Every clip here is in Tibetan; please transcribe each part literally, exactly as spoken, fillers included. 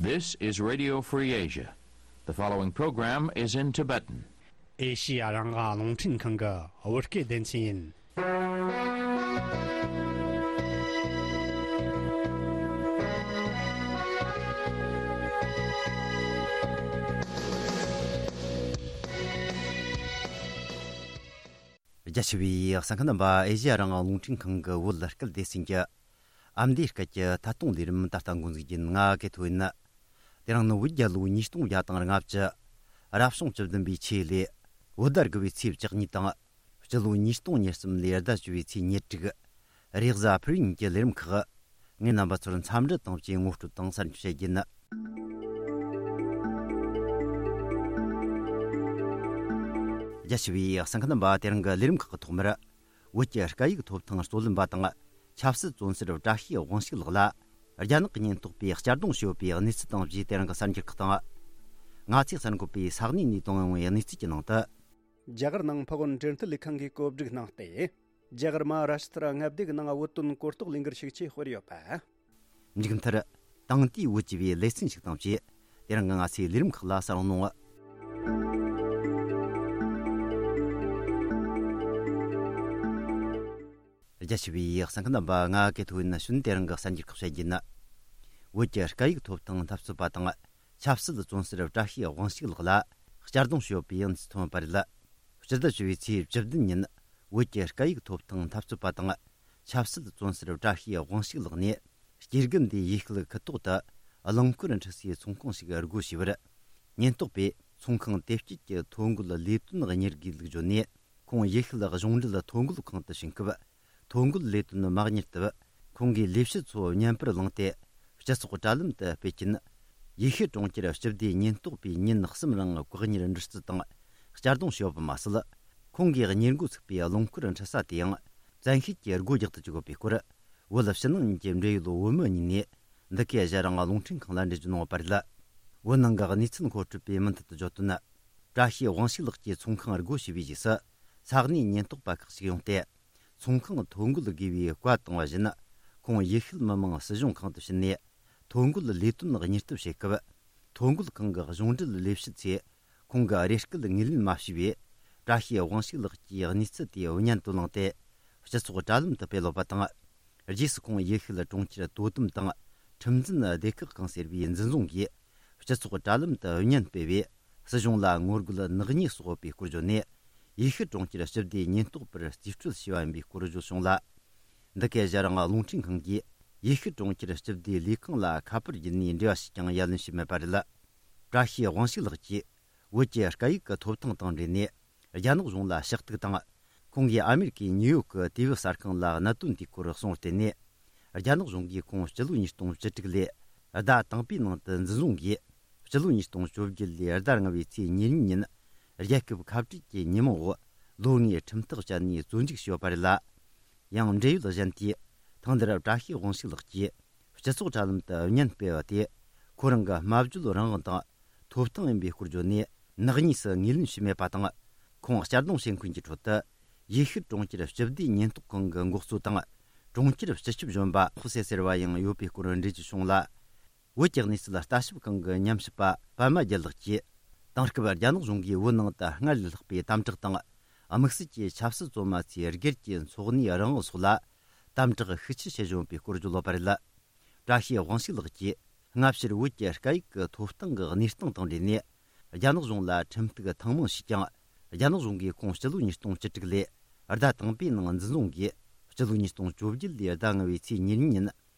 This is Radio Free Asia. The following program is in Tibetan. ཨེ་ཤི་ཡ་རང་དབང་རླུང་འཕྲིན་ཁང་གི་བོད་སྐད་སྡེ་ཚན་ཡིན། རྒྱ་ཆེ་བའི་གསན་མཁན་རྣམ་པ། ཨེ་ཤི་ཡ་རང་དབང་རླུང་འཕྲིན་ཁང་གི་བོད་སྐད་སྡེ་ཚན་གྱི་ཨ་མདོའི་སྐད་ཀྱི་ཐད་གཏོང་ལས་རིམ་ད་ལྟ་འགོ་འཛུགས་རྒྱུ་ཡིན། ང་གི་ཐོ་ཡིན། དེ་རིང་ནི་བོད་རྒྱལ་ལོ་ཉིས་སྟོང་བརྒྱ་དང་ལྔ་བཅུ། རབ་བྱུང་བཅུ་བདུན་པའི་ཆོས་ལོའི་བོད་ཟླ་དགུ་པའི་ཚེས་བཅུ་གཉིས་དང་། སྤྱི་ལོ་ཉིས་སྟོང་ཉེར་གསུམ་ལོའི་ཟླ་བཅུ་པའི་ཚེས་ཉེར་དྲུག། རེས་གཟའ་ཕུར་བུ་ཉིན་གྱི་ལས་རིམ་ཁག། ངས་རྣམ་པ་ཚོར་འཚམས་འདྲི་དང་བཅས་ངོ་སྤྲོད་དང་གསར་འགྱུར་བཤད་རྒྱུ་ཡིན། རྒྱ་ཆེ་བའི་གསན་མཁན་རྣམ་པ། དེ་རིང་གི་ལས་རིམ་ཁག་གི་ཐོག་མར། བོད་ཀྱི་སྐད་ཡིག་ཐོབ་ཐང་རྩོད་ལེན་པ་དང་ཆབ་སྲིད་བཙོན་ཟུར་བཀྲ་ཤིས་དབང་ཕྱུག་ལགས་ལ། རྒྱ་ནག་གི་ཉེན་རྟོག་པས་གཅར་རྡུང་བྱས་ཡོད་པའི་གནས་ཚུལ་དང་བཅས་དེ་རིང་གི་གསར་འགྱུར་ཁག་དང་། ང་ཚོས་གསར་འགོད་པས་ས་གནས་ནས་བཏང་ཡོང་བའི་གནས་ཚུལ་གྱི་ནང་དུ། རྒྱ་གར་ནང་ཕ་གོར་འབྲེལ་མཐུད་ལས་ཁང་གིས་བཀོད་སྒྲིག་གནང་སྟེ། རྒྱ་གར་མ་ཧཱ་རཱ་ཤི་ཏྲ་མངའ་སྡེ་གི་ནང་བོད་དོན་གོ་རྟོགས་ལས་འགུལ་ཤུགས་ཆེ་སྤེལ་ཡོད་པ། མཇུག་མཐར། དེང་དུས་བོད་ཀྱི་བའི་ལེ་ཚན་ཞིག་དང་བཅས། དེ་རིང་གི་ང་ཚོའི་ལས་རིམ་ཁག་ལ་གསན་རོགས་གནང་། རྒྱ་ཆེ་བའི་གསན་མཁན་རྣམ་པ། ང་གི་ཐོ་ཡིན་ན་ཤུན་དེ་རིང་གི་གསར་འགྱུར་ཁག་བཤད་རྒྱུ་ཡིན། བོད་ཀྱི་སྐད་ཡིག་ཐོབ་ཐང་འཐབ་རྩོད་པ་དང་ཆབ་སྲིད་བཙོན་ཟུར་བཀྲ་ཤིས་དབང་ཕྱུག་ལགས་ལ་གཅར་རྡུང་བྱས་ཡོད་པའི་གནས་ཚུལ་ཐོན་པ་རེད། སྤྱི་ཟླ་བཅུ་པའི་ཚེས་བཅུ་བདུན་ཉིན་བོད་ཀྱི་སྐད་ཡིག་ཐོབ་ཐང་འཐབ་རྩོད་པ་དང་ཆབ་སྲིད་བཙོན་ཟུར་བཀྲ་ཤིས་དབང་ཕྱུག་ལགས་ནས། སྐྱེ་རྒུ་མདའི་ཡུལ་སྐད་ཁུལ་ཐོག་ཏུ་རླངས་འཁོར་འཁྲུད་སའི་ཚོང་ཁང་ཞིག་སྒོ་ཕྱེ་བར། ཉེན་རྟོག་པས་ཚོང་ཁང་དེ་དཀྱིལ་གྱི་ཐོ་འགོད་ལས་དོན་གཉེར་དགོས་ལུགས་བརྗོད་ནས། ཁོང་ཡུལ་ཤུལ་གཞུང་འབྲེལ་ཐོ་འགོད་ཁང་དུ་ཕྱིན་སྐབས། ཐོ་འགོད་ལས་དོན་མ་གཉེར་སྟབས། ཁོང་གིས་ལས་བྱེད་ཚོ་བརྙན་པར་བླངས་ཏེ། སྤྱི་ཚོགས་དྲ་ལམ་དུ་སྤེལ་རྐྱེན། ཡུལ་ཤུལ་གྲོང་ཁྱེར་སྤྱི་བདེའི་ཉེན་རྟོག་པས་ཉིན་གསུམ་རིང་བཀག་ཉར་འདྲི་རྩད་དང་། གཅར་རྡུང་བྱས་ཡོད་པ་མ་ཟད། ཁོང་གིས་གཉེར་འགོ་ཚུགས་པའི་རླངས་འཁོར་འཁྲུད་ས་དེའང་། བཙན་ཤེད་ཀྱིས་སྒོ་རྒྱག་ཏུ་བཅུག་ཡོད་པའི་སྐོར། བོད་ཕྱི་ནང་གཉིས་ཀྱི་འབྲེལ་ཡོད་བོད་མི་གཉིས་ནས། འདི་གའི་གཞན་རང་རླུང་འཕྲིན་ཁང་ལ་འགྲེལ་བརྗོད་གནང་ཡོད་པ་རེད། བོད་ནང་གི་གནས་ཚུལ་མཁོ་སྤྲོད་པས་མུ་མཐུད་དུ་བརྗོད་དོན། བཀྲ་ཤིས་དབང་ཕྱུག་ལགས་ཀྱིས་ཚོང་ཁང་སྒོ་ཕྱེ་བའི་རྗེས་སུ། ས་གནས་ཉེན་རྟོག་པ་ཁག་ཅིག་ཡོང་སྟེ། ཚོང་ཁང་ཐོ་འགོད་དགོས་པའི་བཀའ་བཏང་བ་བཞིན། ཁོང་ཡུལ་ཤུལ་མི་དམངས་སྲིད་གཞུང་ཁང་དུ་ཕྱིན་ནས། ཐོ་འགོད་ལས་དོན་གཉེར་སྟབས་བྱེད་སྐབས། ཐོ་འགོད་ཁང་གི་གཞུང་འབྲེལ་ལས་བྱེད་ཚོས། ཁོང་གི་རེ་སྐུལ་ངོས་ལེན་མ་བྱས་པས། བཀྲ་ཤིས་དབང་ཕྱུག་ལགས་ཀྱིས་གནས་ཚུལ་དེ་བརྙན་དུ་བླངས་ཏེ། སྤྱི་ཚོགས་དྲ་ལམ་དུ་སྤེལ་ཡོད་པ་དང་། རྗེས་སུ་ཁོང་ཡུལ་ཤུལ་གྲོང་ཁྱེར་དོ་དམ་དང་། ཁྲིམས་འཛིན་སྡེ་ཁག་ཁང་ཟེར་བའི་འཛིན་བཟུང་གིས། སྤྱི་ཚོགས་དྲ་ལམ་དུ་བརྙན་སྤེལ་བས། སྲིད་གཞུང་ལ་ངོ་རྒོལ་ནག་ཉེས་སོགས་ཡོད་པའི་སྐོར་བརྗོད་ནས། ཡུལ་ཤུལ་གྲོང་ཁྱེར་སྤྱི་བདེའི་ཉེན་རྟོག་པར་རྩིས་སྤྲོད་བྱས་པ་ཡིན་པའི་སྐོར་བརྗོད་བྱུང་ལ། འདི་གའི་གཞན་རང་རླུང་འཕྲིན་ཁང་གིས། ཡུལ་ཤུལ་གྲོང་ཁྱེར་སྤྱི་བདེའི་ལས་ཁང་ལ་ཁ་པར་བརྒྱུད་ནས་འབྲེལ་བ་ཞུས་ཀྱང་ཡ་ལན་ཞུས་མེད་པ་རེད། བཀྲ་ཤིས་དབང་ཕྱུག་ལགས་ཀྱིས། བོད་ཀྱི་སྐད་ཡིག་གི་ཐོབ་ཐང་དང་འབྲེལ་ནས། རྒྱ་ནག་གཞུང་ལ་ཕྱག་ཐུག་དང་། ཁོང་གིས་ཨ་མེ་རི་ཀའི་ནིའུ་ཡོག་གི་དུས་བབ་གསར་ཁང་ལ་གནད་དོན་དེའི་སྐོར་གསུངས་བརྟེན་ནས། རྒྱ་ནག་གཞུང་གིས་ཁོང་སྤྱི་ལོ་ཉིས་སྟོང་བཅུ་དྲུག་ལོའི་ཟླ་དང་པོའི་ནང་དུ་འཛིན་བཟུང་གིས། སྤྱི་ལོ་ཉིས་སྟོང་བཅོ་བརྒྱད་ལོའི་ཟླ་ལྔ་པའི་ཚེས་ཉེར་གཉིས་ཉིན། རྒྱལ་ཁབ་ཁ་བྲལ་གྱི་ཉིན་མོ་འོག་ལོ་ལྔའི་ཁྲིམས་ཐག་བཅད་ནས་བཙོན་འཇུག་བྱས་ཡོད་པ་རེད་ལ། ཡང་འབྲེལ་ཡོད་གཞན་དེས། ཐེངས་འདིར་བཀྲ་ཤིས་དབང་ཕྱུག་ལགས་ཀྱིས། སྤྱི་ཚོགས་དྲ་ལམ་དུ་བརྙན་སྤེལ་བ་དེ། ཁོ་རང་གི་སྨྲ་བརྗོད་རང་དབང་དང་། ཐོབ་ཐང་ཡིན་པའི་སྐོར་བརྗོད་ནས། ནག་ཉེས་སུ་ངོས་ལེན་བྱས་མེད་པ་དང་། ཁོང་གཅར་རྡུང་བྱེད་མཁན་གྱི་ཁྲོད་དུ། ཡུལ་ཤུལ་གྲོང་ཁྱེར་སྤྱི་བདེའི་ཉེན་རྟོག་ཁང་གི་འགོ་གཙོ་དང་། གྲོང་ཁྱེར་སྤྱི་ཁྱབ་གཞོན་པ་ཧྥུ་སེ་ཟེར་བ་ཡང་ཡོད་པའི་སྐོར་འགྲེལ་བརྗོད་བྱུང་ལ། བོད་ཀྱི་གནས་ཚུལ་ལྟ་ཞིབ་ཁང་གི་ཉམས་ཞིབ་པ་པད་མ་རྒྱལ་ལགས་ཀྱིས། དེང་སྐབས་རྒྱ་ནག་གཞུང་གིས་བོད་ནང་དུ་སྔར་ལས་ལྷག་པའི་དམ་དྲག་དང་། དམིགས་བསལ་གྱི་ཆབ་སྲིད་བཙོན་མ་ཚོའི་སྒེར་གྱི་འཚོ་གནས་རང་དབང་སོགས་ལ། དམ་དྲག་ཤུགས་ཆེ་བྱེད་བཞིན་པའི་སྐོར་བརྗོད་ཡོད་པ་རེད། བཀྲ་ཤིས་དབང་ཕྱུག་ལགས་ཀྱིས། སྔ་ཕྱིར་བོད་ཀྱི་སྐད་ཡིག་གི་ཐོབ་ཐང་གི་གནས་སྟངས་དང་འབྲེལ་ནས། རྒྱ་ནག་གཞུང་ལ་ཁྲིམས་གཏུག་ཐེངས་མང་ཞུས་ཀྱང་། རྒྱ་ནག་གཞུང་གིས་ཁོང་སྤྱི་ལོ་ཉིས་སྟོང་བཅུ་དྲུག་ལོའི་ཟླ་དང་པོའི་ནང་འཛིན་བཟུང་གིས། སྤྱི་ལོ་ཉིས་སྟོང་བཅོ་བརྒྱད་ལོའི་ཟླ་ལྔ་པའི་ཚེས་ཉེར་གཉིས་ཉིན།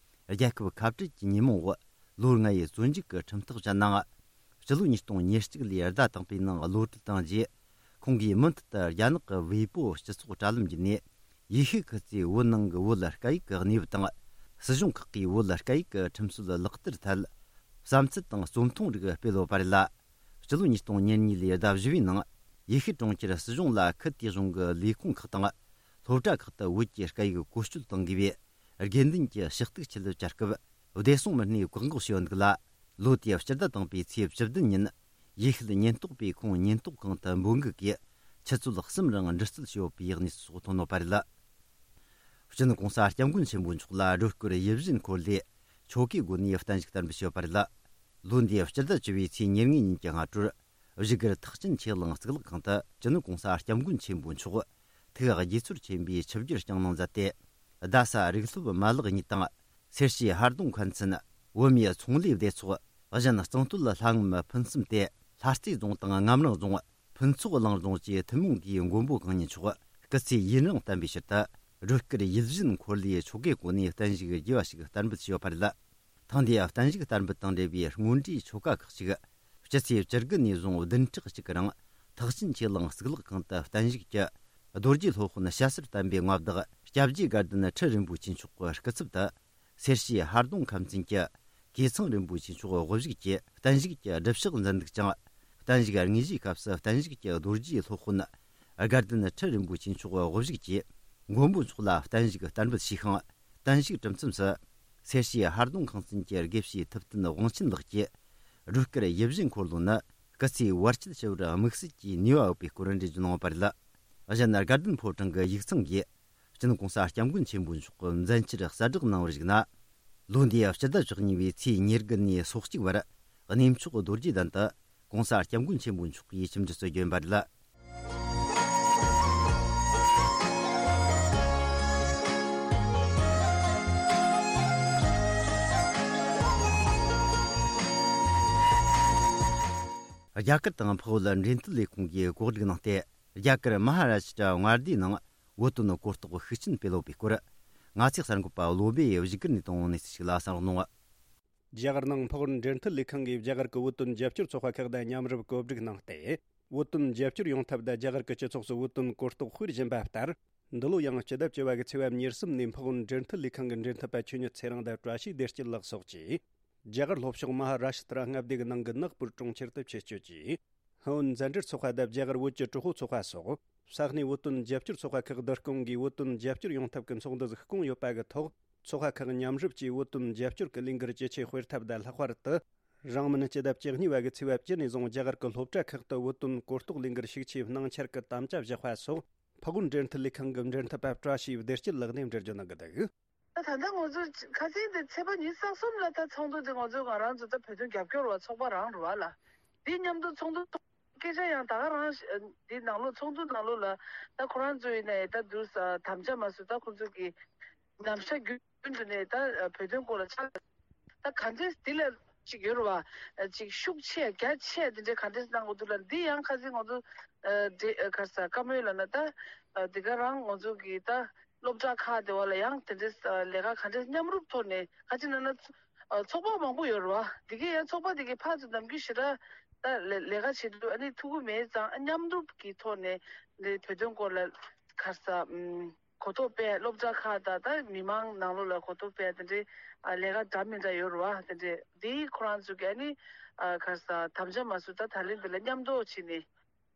རྒྱལ་ཁབ་ཁ་བྲལ་གྱི་ཉིན་མོ་འོག་ལོ་ལྔ་ཡི་བཙོན་འཇུག་གི་ཁྲིམས་ཐག་བཅད་ནའང་། སྤྱི་ལོ་ཉིས་སྟོང་ཉེར་གཅིག་ལོའི་ཟླ་དང་པོའི་ནང་གློད་གྲོལ་བཏང་རྗེས། ཁོང་གིས་མུ་མཐུད་དུ་རྒྱ་ནག་གི་ཝེ་པོ་སྤྱི་ཚོགས་དྲ་ལམ་བརྒྱུད་ནས། ཡུལ་ཤུལ་ཁུལ་གྱི་བོད་ནང་གི་བོད་སྐད་ཡིག་གི་གནས་བབ་དང་། སྲིད་གཞུང་ཁག་གིས་བོད་སྐད་ཡིག་གི་ཁྲིམས་སྲོལ་ལག་བསྟར་ཐད། བསམ་ཚུལ་དང་རྩོམ་ཐུང་རིགས་སྤེལ་ཡོད་པ་རེད་ལ། སྤྱི་ལོ་ཉིས་སྟོང་ཉེར་གཉིས་ལོའི་ཟླ་བཞི་པའི་ནང་། ཡུལ་ཤུལ་གྲོང་ཁྱེར་སྲིད་གཞུང་ལ་ཁུལ་དེའི་གཞུང་གི་ལས་ཁུངས་ཁག་དང་། སློབ་གྲྭ་ཁག་ཏུ་བོད་ཀྱི་སྐད་ཡིག་བཀོལ་སྤྱོད་གཏོང་དགོས་པའི། དགོས་འདུན་གྱི་ཕྱག་ཐུག་ཆེད་བཅར་སྐབས། བདེ་སྲུང་མི་སྣས་བཀག་འགོག་བྱས་ཡོད་འདུག་ལ། ལོ་དེའི་སྤྱི་ཟླ་དང་པོའི་ཚེས་བཅུ་བདུན་ཉིན། ཡུལ་ཤུལ་ཉེན་རྟོག་པས་ཁོང་ཉེན་རྟོག་ཁང་དུ་འབོད་འགུག་གིས། ཆུ་ཚོད་གསུམ་རིང་འདྲི་རྩད་བྱས་ཡོད་པའི་གནས་ཚུལ་སོགས་ཐོན་ཡོད་པ་རེད། སྤྱི་ནོར་༸གོང་ས་༸སྐྱབས་མགོན་ཆེན་པོ་མཆོག་ལ་སྒྲོལ་སྐུར་ཡིད་བཞིན་འཁོར་ལོས་ཆོ་གའི་སྒོ་ནས་བརྟན་བཞུགས་བསྟར་འབུལ་བྱས་ཡོད་པ་རེད། ལོ་འདིའི་སྤྱི་ཟླ་བཅུ་པའི་ཚེས་ཉེར་ལྔའི་ཉིན་གྱི་སྔ་དྲོར། བཞུགས་སྒར་ཐེག་ཆེན་ཆོས་གླིང་གཙུག་ལག་ཁང་དུ་སྤྱི་ནོར་༸གོང་ས་༸སྐྱབས་མགོན་ཆེན་པོ་མཆོག་ཐུགས་དགྱེས་ཚོར་ཆེན་པོས་ཆིབས་བསྒྱུར་བསྐྱངས་གནང་མཛད་དེ། རྡ་ས་རིག་སློབ་མ་ལག་གཉིས་དང་། སེར་བྱེས་ཧར་གདོང་མཁར་མཚན། བོད་མིའི་ཚོང་ལས་སྡེ་ཚོགས། གཞན་གཙང་སྟོད་ལྷ་ངམ་ཕུན་སུམ་དེ། ལྷ་རྩེ་རྫོང་དང་ངམ་རིང་རྫོང་། ཕུན་ཚོགས་གླིང་རྫོང་བཅས་ཐུན་མོང་གིས་མགོན་པོ་གང་ཉིད་མཆོག་སྐུ་ཚེ་ཡུན་རིང་བརྟན་པའི་ཕྱིར་དུ། སྒྲོལ་དཀར་ཡིད་བཞིན་འཁོར་ལོའི་ཆོ་གའི་སྒོ་ནས་བརྟན་བཞུགས་རྒྱས་པ་ཞིག་བསྟར་འབུལ་བྱས་ཡོད་པ་རེད། ཐེངས་འདིའི་བརྟན་བཞུགས་བསྟར་འབུལ་དང་འབྲེལ་བའི་སྔོན་འགྲོའི་ཆོ་ག་ཁག་ཅིག་སྤྱི་ཚེས་བཅུ་དགུ་ནས་བཟུང་བདུན་ཕྲག་གཅིག་གི་རིང་ཐེག་ཆེན་ཆོས་གླིང་གཙུག་ལག་ཁང་དུ་བརྟན་བཞུགས་ཀྱི་རྡོ་རྗེ་སློབ་དཔོན་སྐྱ་སེར་བསྟན་པའི་མངའ་བདག་སྐྱབས་རྗེ་དགའ་ལྡན་ཁྲི་རིན་པོ་ཆེ་མཆོག་གི་སྐུ་ཚབ་ཏུ། སེར་བྱེས་ཧར་གདོང་ཁམས་ཚན་གྱི་ཀུན་ཚང་རིན་པོ་ཆེ་མཆོག་དབུ་བཞུགས་ཀྱིས་བརྟན་བཞུགས་ཀྱི་སྒྲུབ་ཕྱག་མཛད་འདུག་ཅིང་། བརྟན་བཞུགས་དངོས་གཞིའི་སྐབས་སུ་བརྟན་བཞུགས་ཀྱི་རྡོ་རྗེ་སློབ་དཔོན་དགའ་ལྡན་ཁྲི་རིན་པོ་ཆེ་མཆོག་དབུ་བཞུགས་ཀྱིས་མགོན་པོ་མཆོག་ལ་བརྟན་བཞུགས་བསྟར་འབུལ་ཞུས་ཤིང་། བརྟན་བཞུགས་གྲུབ་མཚམས་སུ། སེར་བྱེས་ཧར་གདོང་ཁང་ཚན་གྱི་དགེ་བཤེས་ཐུབ་བསྟན་དབང་ཆེན་ལགས་ཀྱིས། སྒྲོལ་དཀར་ཡིད་བཞིན་འཁོར་ལོ་ནི་སྐུ་ཚེའི་བར་ཆད་ཞི་བར་དམིགས་བསལ་གྱི་ནུས་པ་ཡོད་པའི་སྐོར་འགྲེལ་བརྗོད་གནང་བ་རེད། གཞན་དགའ་ལྡན་ཕོ་བྲང་གི་ཡིག་ཚང་གིས། སྤྱི་ནོར་༸གོང་ས་༸སྐྱབས་མགོན་ཆེན་པོ་མཆོག་གི་མཛད་འཆར་གསལ་བསྒྲགས་གནང་བར་གཞིགས་ན། ལོ་འདིའི་སྤྱི་ཟླ་བཅུ་གཉིས་པའི་ཚེས་ཉེར་དགུ་ནས་སོ་གཅིག་བར་གནས་མཆོག་རྡོ་རྗེ་གདན་དུ་༸གོང་ས་༸སྐྱབས་མགོན་ཆེན་པོ་མཆོག་གིས་ཆིབས་འཇུག་སྲོལ་བསྐྱོན་པ་རེད། རྒྱ་གར་དང་འཕགས་བོད་འབྲེལ་མཐུད་ལས་ཁུངས་ཀྱིས་གོ་སྒྲིག་གནང་སྟེ། རྒྱ་གར་མ་ཧ་ར་ཤི་ཏྲ་མངའ་སྡེའི་ནང་བོད་དོན་གོ་རྟོགས་ཤུགས་ཆེན་སྤེལ་ཡོད་པའི་སྐོར། ང་ཚོའི་གསར་འགོད་པ་བློ་བྷེ་ཡིས་བཞུགས་སྒར་ནས་བཏང་བའི་གནས་ཚུལ་ཞིག་ལ་གསན་རོགས་གནང་། རྒྱ་གར་ནང་འཕགས་བོད་འབྲེལ་མཐུད་ལས་ཁང་གིས་རྒྱ་གར་གྱི་བོད་དོན་རྒྱབ་སྐྱོར་ཚོགས་པ་ཁག་དང་མཉམ་རུབ་གོ་སྒྲིག་གནང་སྟེ། བོད་དོན་རྒྱབ་སྐྱོར་ཡོང་ཐབས་དང་རྒྱ་གར་གྱི་སྤྱི་ཚོགས་སུ་བོད་དོན་གོ་རྟོགས་སྤེལ་བཞིན་པ་ལྟར། འདི་ལོ་ཡང་སྤྱི་ཟླ་བཅུ་པ་གི་ཚེས་པ་ཉེར་གསུམ་ནས་འཕགས་བོད་འབྲེལ་མཐུད་ལས་ཁང་གི་འབྲེལ་མཐུད་པ་ཆོས་ཉིད་ཚེ་རིང་དང་བཀྲ་ཤིས་བདེ་སྐྱིད་ལགས་སོགས་ཀྱིས། རྒྱ་གར་ལྷོ་ཕྱོགས་མ་ཧ་ར་ཤི་ཏྲ་མངའ་སྡེ་གི་ནང་གི་ནག་པུར་གྲོང་ཁྱེར་དུ་ཆེད་བསྐྱོད་ཀྱིས། ཧ་ཨོན་མཛའ་འབྲེལ་ཚོགས་པ་དང་རྒྱ་གར་བོད་ཀྱི་གྲོགས་པོ་ཚོགས་པ་སོགས་ས་གནས་བོད་དོན་རྒྱབ་སྐྱོར་ཚོགས་པ་ཁག་བསྡུ་སྐོང་གིས་བོད་དོན་རྒྱབ་སྐྱོར་ཡོང་ཐབས་ཀྱི་ཚོགས་འདུ་ཟིག་བསྐོང་ཡོད་པ་གི་ཐོག་ཚོགས་པ་ཁག་མཉམ་རུབ་ཀྱིས་བོད་དོན་རྒྱབ་སྐྱོར་གྱི་ལས་འགུལ་ཇེ་ཆེ་སྤེལ་ཐབས་དང་ལྷག་པར་དུ། རིང་མིན་སྤྱི་ཟླ་བཅུ་གཉིས་པ་གི་ཚེས་པ་བཅུ་ནས་བཟུང་རྒྱ་གར་གྱི་སློབ་གྲྭ་ཁག་ཏུ་བོད་དོན་གོ་རྟོགས་ལས་འགུལ་ཤུགས་ཆེ་གནང་འཆར་གྱི་དམ་བཅའ་བཞག་པ་སོགས་འཕགས་བོད་འབྲེལ་མཐུད་ལས་ཁང་གི་འབྲེལ་མཐུད་པ་བཀྲ་ཤིས་བདེ་སྐྱིད་ལགས་ནས་འགྲེལ་བརྗོད་གནང་གི་འདུག་ད་ད་ལྟ་ང་ཚོ་ཁ་སང་དེ་ཚེས་པ་ཉི་ཤུ་རྩ་གསུམ་ལ་ད་ཚོགས་འདུ་དེ་ང་ཚོ་ང་རང་ཚོ་ད་བོད་དོན་རྒྱབ་སྐྱོར་བ་ཚོགས་པ་རང་རེད་བ་ལ། དེ་མཉམ་དུ་ཚོགས་འདུ་སྐད་ཆ་ཡང་ད་ག་རང་ཞིག་འདི་ནང་ལོགས་ཚོགས་འདུ་ནང་ལོགས་ལ་ད་ཁོ་རང་ཚོ་ཡིན་ནའི་ད་དུས་དམ་བཅའ་མ་བཟོས། ད་ཁོ་ཚོ་གི་ནམ་ཞག་རྒྱུན་དུ་ནས་ད་བོད་དོན་སྐོར་ལ་ཆ་ད་ག་འདྲས་འདི་ལ་ཅིག་ཡོད་རེད་བ། ཅིག་ཤུགས་ཆེ་རྒྱ་ཆེ་དེ་འདྲའི་ག་འདྲས་གནང་དགོས་འདུག་ལ། འདི་ཡང་ཁ་སང་ང་ཚོ་དེ་ག་ས་བཀའ་མོལ་ལ་ན་ད་དེ་ག་རང་ང་ཚོ་གི་ད་སློབ་གྲྭ་ཁག་དེ་བ་ལ་ཡང་དེ་འདྲས་ལས་ཀ་ག་འདྲས་མཉམ་རུབ་ཐོག་ནས་ཁ་ཅིག་ན་ན་ཚོགས་པ་མང་པོ་ཡོད་རེད་བ། དེ་གས་ཡང་ཚོགས་པ་དེ་གས་ཕར་ཚུར་ནམ་རྒྱུན་ཞེ་དྲག་ད་ལས་ལས་ཀ་བྱེད་དུས་ཨ་ནི་ཐུག་གི་མེད་ཙང་མཉམ་རུབ་ཀྱི་ཐོག་ནས་འདི་བོད་དོན་སྐོར་ལ་ག་ས་ཨུམ། གོ་རྟོགས་སྤེལ། སློབ་གྲྭ་ཁག་དང་ད་མི་མང་ནང་ལོགས་ལ་གོ་རྟོགས་སྤེལ་དེ་འདྲའི་ཨ་ལས་ཀ་འདྲ་མི་འདྲ་ཡོད་རེད་བ། དེ་འདྲའི་འདིའི་ཁོ་རང་ཚོ་གི་ཨ་ནི་ཨ་ག་ས་དམ་བཅའ་མ་བཟོས། ད་ད་ལན་འདི་ལ་མཉམ་དུ་བྱས་ནས་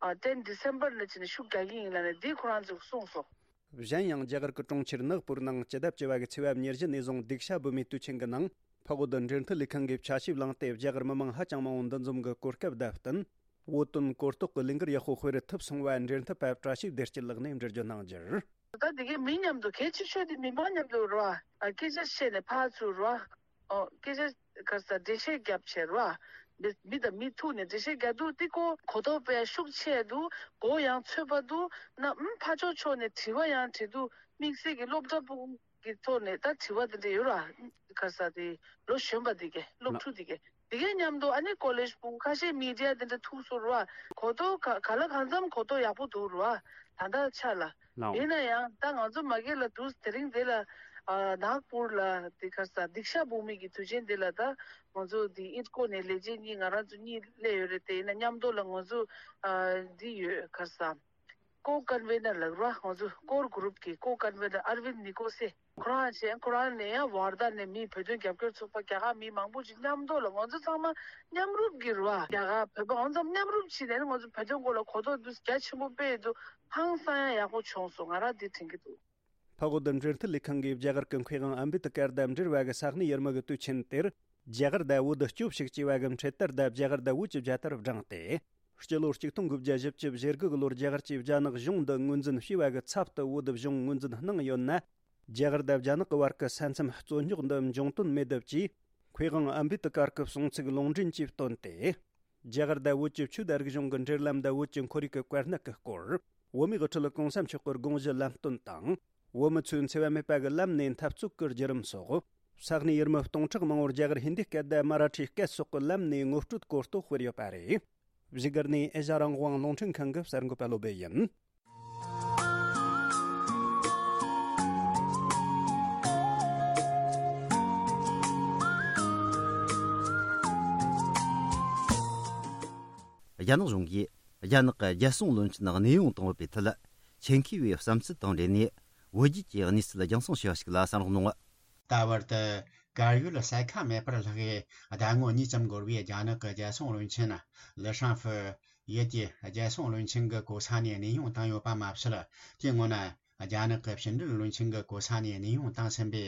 ཨ་ཊེན་ཌི་སེམ་བར་ལ་བྱས་ནས་ཤུགས་རྒྱག་གི་ཡིན་ལབ་ནས་འདི་ཁོ་རང་ཚོས་གསུངས་སོང་། གཞན་ཡང་རྒྱ་གར་གྱི་གྲོང་ཁྱེར་ནག་པུར་ནང་སྤྱི་ཟླ་བཅུ་པ་གི་ཚེས་པ་ཉེར་བཞི་ནས་བཟུང་སྡིག་བྱ་འབུལ་མའི་དུས་ཆེན་གྱི་ནང་འཕགས་བོད་འབྲེལ་མཐུད་ལས་ཁང་གིས་ཆ་ཞིབ་བླངས་ཏེ་རྒྱ་གར་མི་མང་ཧ་ཅང་མང་བོ་འདུ་འཛོམས་ཀྱི་གོ་སྐབས་དང་བསྟུན། བོད་དོན་གོ་རྟོགས་ཀྱི་ལས་འགུལ་ཡག་པོ་སྤེལ་ཐུབ་སོང་བ་འབྲེལ་མཐུད་པ་བཀྲ་ཤིས་བདེ་སྐྱིད་ལགས་ནས་འགྲེལ་བརྗོད་གནང་རྒྱུར། ད་འདི་གའི་མི་མཉམ་དུ་གལ་ཆེ་ཤོས་དེ་མི་མང་མཉམ་དུ་རེད་བ། སྐད་ཆ་བཤད་ནས་ཕར་ཚུར་རེད་བ། ཨོ་སྐད་ཆ་ག་ས་འགྲེལ་བཤད་རྒྱབ་བྱས་རེད་བ། མི་མི་དང་མི་ཐུག་ནས་འགྲེལ་བཤད་རྒྱག་དུས་དེ་ཀོ་གོ་རྟོགས་སྤེལ་ཤུགས་ཆེ་འདུག་གོ་ཡང་ཚོད་པ་འདུག་ན་ཨུམ་ཕར་ཕྱོགས་ཕྱོགས་ནས་དྲི་བ་ཡང་དྲི་འདུག་དམིགས་བསལ་གྱི་སློབ་གྲྭ་སྤུ་གུ་གི་ཐོག་ནས་ད་དྲི་བ་དེ་འདྲ་ཡོད་ར། ག་ས་དེ་ལོ་གཞོན་པ་དེ་གས་སློབ་ཕྲུག་དེ་གས་དེ་གས་མཉམ་དུ་ཨ་ནི་ཀོ་ལེཇ་སྤུ་གུ་ཁ་ཤས་མི་ཌི་ཡ་དེ་འདྲ་ཐུག་སོང་ར། གོ་རྟོགས་ག་ག་ལ་གང་འཚམ་གོ་རྟོགས་ཡག་པོ་འདུག་ར། ད་ལྟ་ཆ་ལ་ཡིན་ན་ཡང་ད་ང་ཚོ་མ་གི་ལ་འདུག་དེ་རིང་དེ་ལ་ནག་པུར་ལ་དེ་ག་ས་སྡིག་བཤགས་འབུལ་མི་གི་དུས་ཆེན་དེ་ལ་ད་ང་ཚོ་དེ་ཨིད་ཀོ་ནས་ལས་བྱེད་གཉིས་ང་རང་ཚོ་གཉིས་སླེབས་ཡོད་རེད། དེ་ཡིན་ན་མཉམ་དུ་ལ་ང་ཚོ་འདི་ཡོད་ག་ས། ཀོ་ཀོན་ཝེ་ནར་ལགས་ར། ང་ཚོ་ཀོར་གུ་རུབ་ཀྱི་ཀོ་ཀོན་ཝེ་ནར་ཨར་ཝིན་ནི་ཀོ་སེ། ཁོ་རང་བྱས་ཁོ་རང་ནས་ཡང་ཝར་དྷ་ནས་མི་བོད་དོན་རྒྱབ་སྐྱོར་ཚོགས་པ་རྒྱ་གར་མི་མང་པོ་ཅིག་མཉམ་དུ་ལ་ང་ཚོ་ཚང་མ་མཉམ་རུབ་ཀྱི་རེད་བ། རྒྱ་གར་བོད་པ་ང་ཚོ་མཉམ་རུབ་བྱས་ནས་ང་ཚོ་བོད་དོན་སྐོར་ལ་གོ་རྟོགས་འདུག་རྒྱ་ཆེན་པོ་སྤེལ་འདུག་ཧང་སང་ཡང་ཡག་པོ་བྱུང་སོང་། ང་རང་འདི་དྲན་གྱི་འདུག་འཕགས་བོད་འབྲེལ་མཐུད་ལས་ཁང་གིས་རྒྱ་གར་གྱི་མཁས་དབང་ཨམ་བེད་ཀར་དང་འབྲེལ་བ་གི་ས་གནས་ཡུལ་མི་གི་དུས་ཆེན་དེར། རྒྱ་གར་དང་བོད་སྐྱོབ་ཞིག་ཅེས་པ་གི་འཕྲེད་དར་དང་རྒྱ་གར་དང་བོད་ཀྱི་རྒྱལ་དར་བསྒྲེངས་ཏེ། སྤྱི་ལོ་གཅིག་སྟོང་དགུ་བརྒྱ་བཞི་བཅུ་ཞེ་དགུ་གི་ལོར་རྒྱ་གར་གྱིས་རྒྱ་ནག་གཞུང་འདི་ངོས་འཛིན་བྱས་པ་གི་ཚབ་ཏུ་བོད་གཞུང་ངོས་འཛིན་གནང་ཡོད་ན། རྒྱ་གར་དང་རྒྱ་ནག་གི་བར་གྱི་ས་མཚམས་རྩོད་རྙོག་འདི་འབྱུང་དོན་མེད་དུ་བཅས། ཕེ་ཝང་ཨམ་བེ་ཏི་ཀར་གྱི་གསུང་ཚིག་ལུང་འདྲེན་གྱིས་བཏོན་ཏེ། རྒྱ་གར་དང་བོད་ཀྱི་ཆོས་དང་རིག་གཞུང་གི་འབྲེལ་ལམ་དང་བོད་ཀྱི་ཁོར་ཡུག་གི་བཀའ་གནད་ཀྱི་སྐོར། བོད་མིའི་དབུ་ཁྲིད་གོང་ས་མཆོག་གི་དགོངས་གཞི་ལམ་སྟོན་དང་། བོད་མི་ཚོས་འཚེ་བ་མེད་པ་གི་ལམ་ནས་འཐབ་རྩོད་ཀྱི་བརྒྱུད་རིམ་སོགས། ས་གནས་ཡུལ་མི་སྟོང་ཕྲག་མང་བོར་རྒྱ་གར་ཧིན་དི་སྐད་དང་མ་ར་ཊིའི་སྐད་སོགས་ཀྱི་ལམ་ནས་ངོ་སྤྲོད་གོ་རྟོགས་སྤེལ་ཡོད་པ་རེད། བཞུགས་སྒར་ནས་ཨེ་ཤ་རང་དབང་རླུང་འཕྲིན་ཁང་གི་གསར་འགོད་པ་བློ་སྦེ་ཡིན། རྒྱ་ནག་གཞུང་གིས་རྒྱ་ནག་གི་རྒྱལ་སྲུང་བློན་ཆེན་གནས་དབྱུང་བཏང་ཡོད་པའི་ཐད། ཆེད་མཁས་པའི་བསམ་ཚུལ་དང་འབྲེལ་ནས། བོད་བརྒྱུད་ཀྱི་གནས་ཚུལ་རྒྱང་སྲིང་ཞུ་བ་ཞིག་ལ་གསན་རོགས་གནང་། ད་བར་དུ་གར་ཡོད་ས་ཁ་མེད་པར་ལྷག་གིས་ཟླ་ངོ་གཉིས་ཙམ་འགོར་བའི་རྒྱ་ནག་གི་རྒྱལ་སྲུང་བློན་ཆེན་ལི་ཧྲང་ཧྥུ་ཡུལ་གྱི་རྒྱལ་སྲུང་བློན་ཆེན་གྱི་གོ་ས་ནས་གནས་དབྱུང་བཏང་ཡོད་པ་མ་ཟད། དེའི་སྔོན་རྒྱ་ནག་གི་ཕྱི་འབྲེལ་བློན་ཆེན་གྱི་གོ་ས་ནས་གནས་དབྱུང་བཏང་ཟིན་པའི་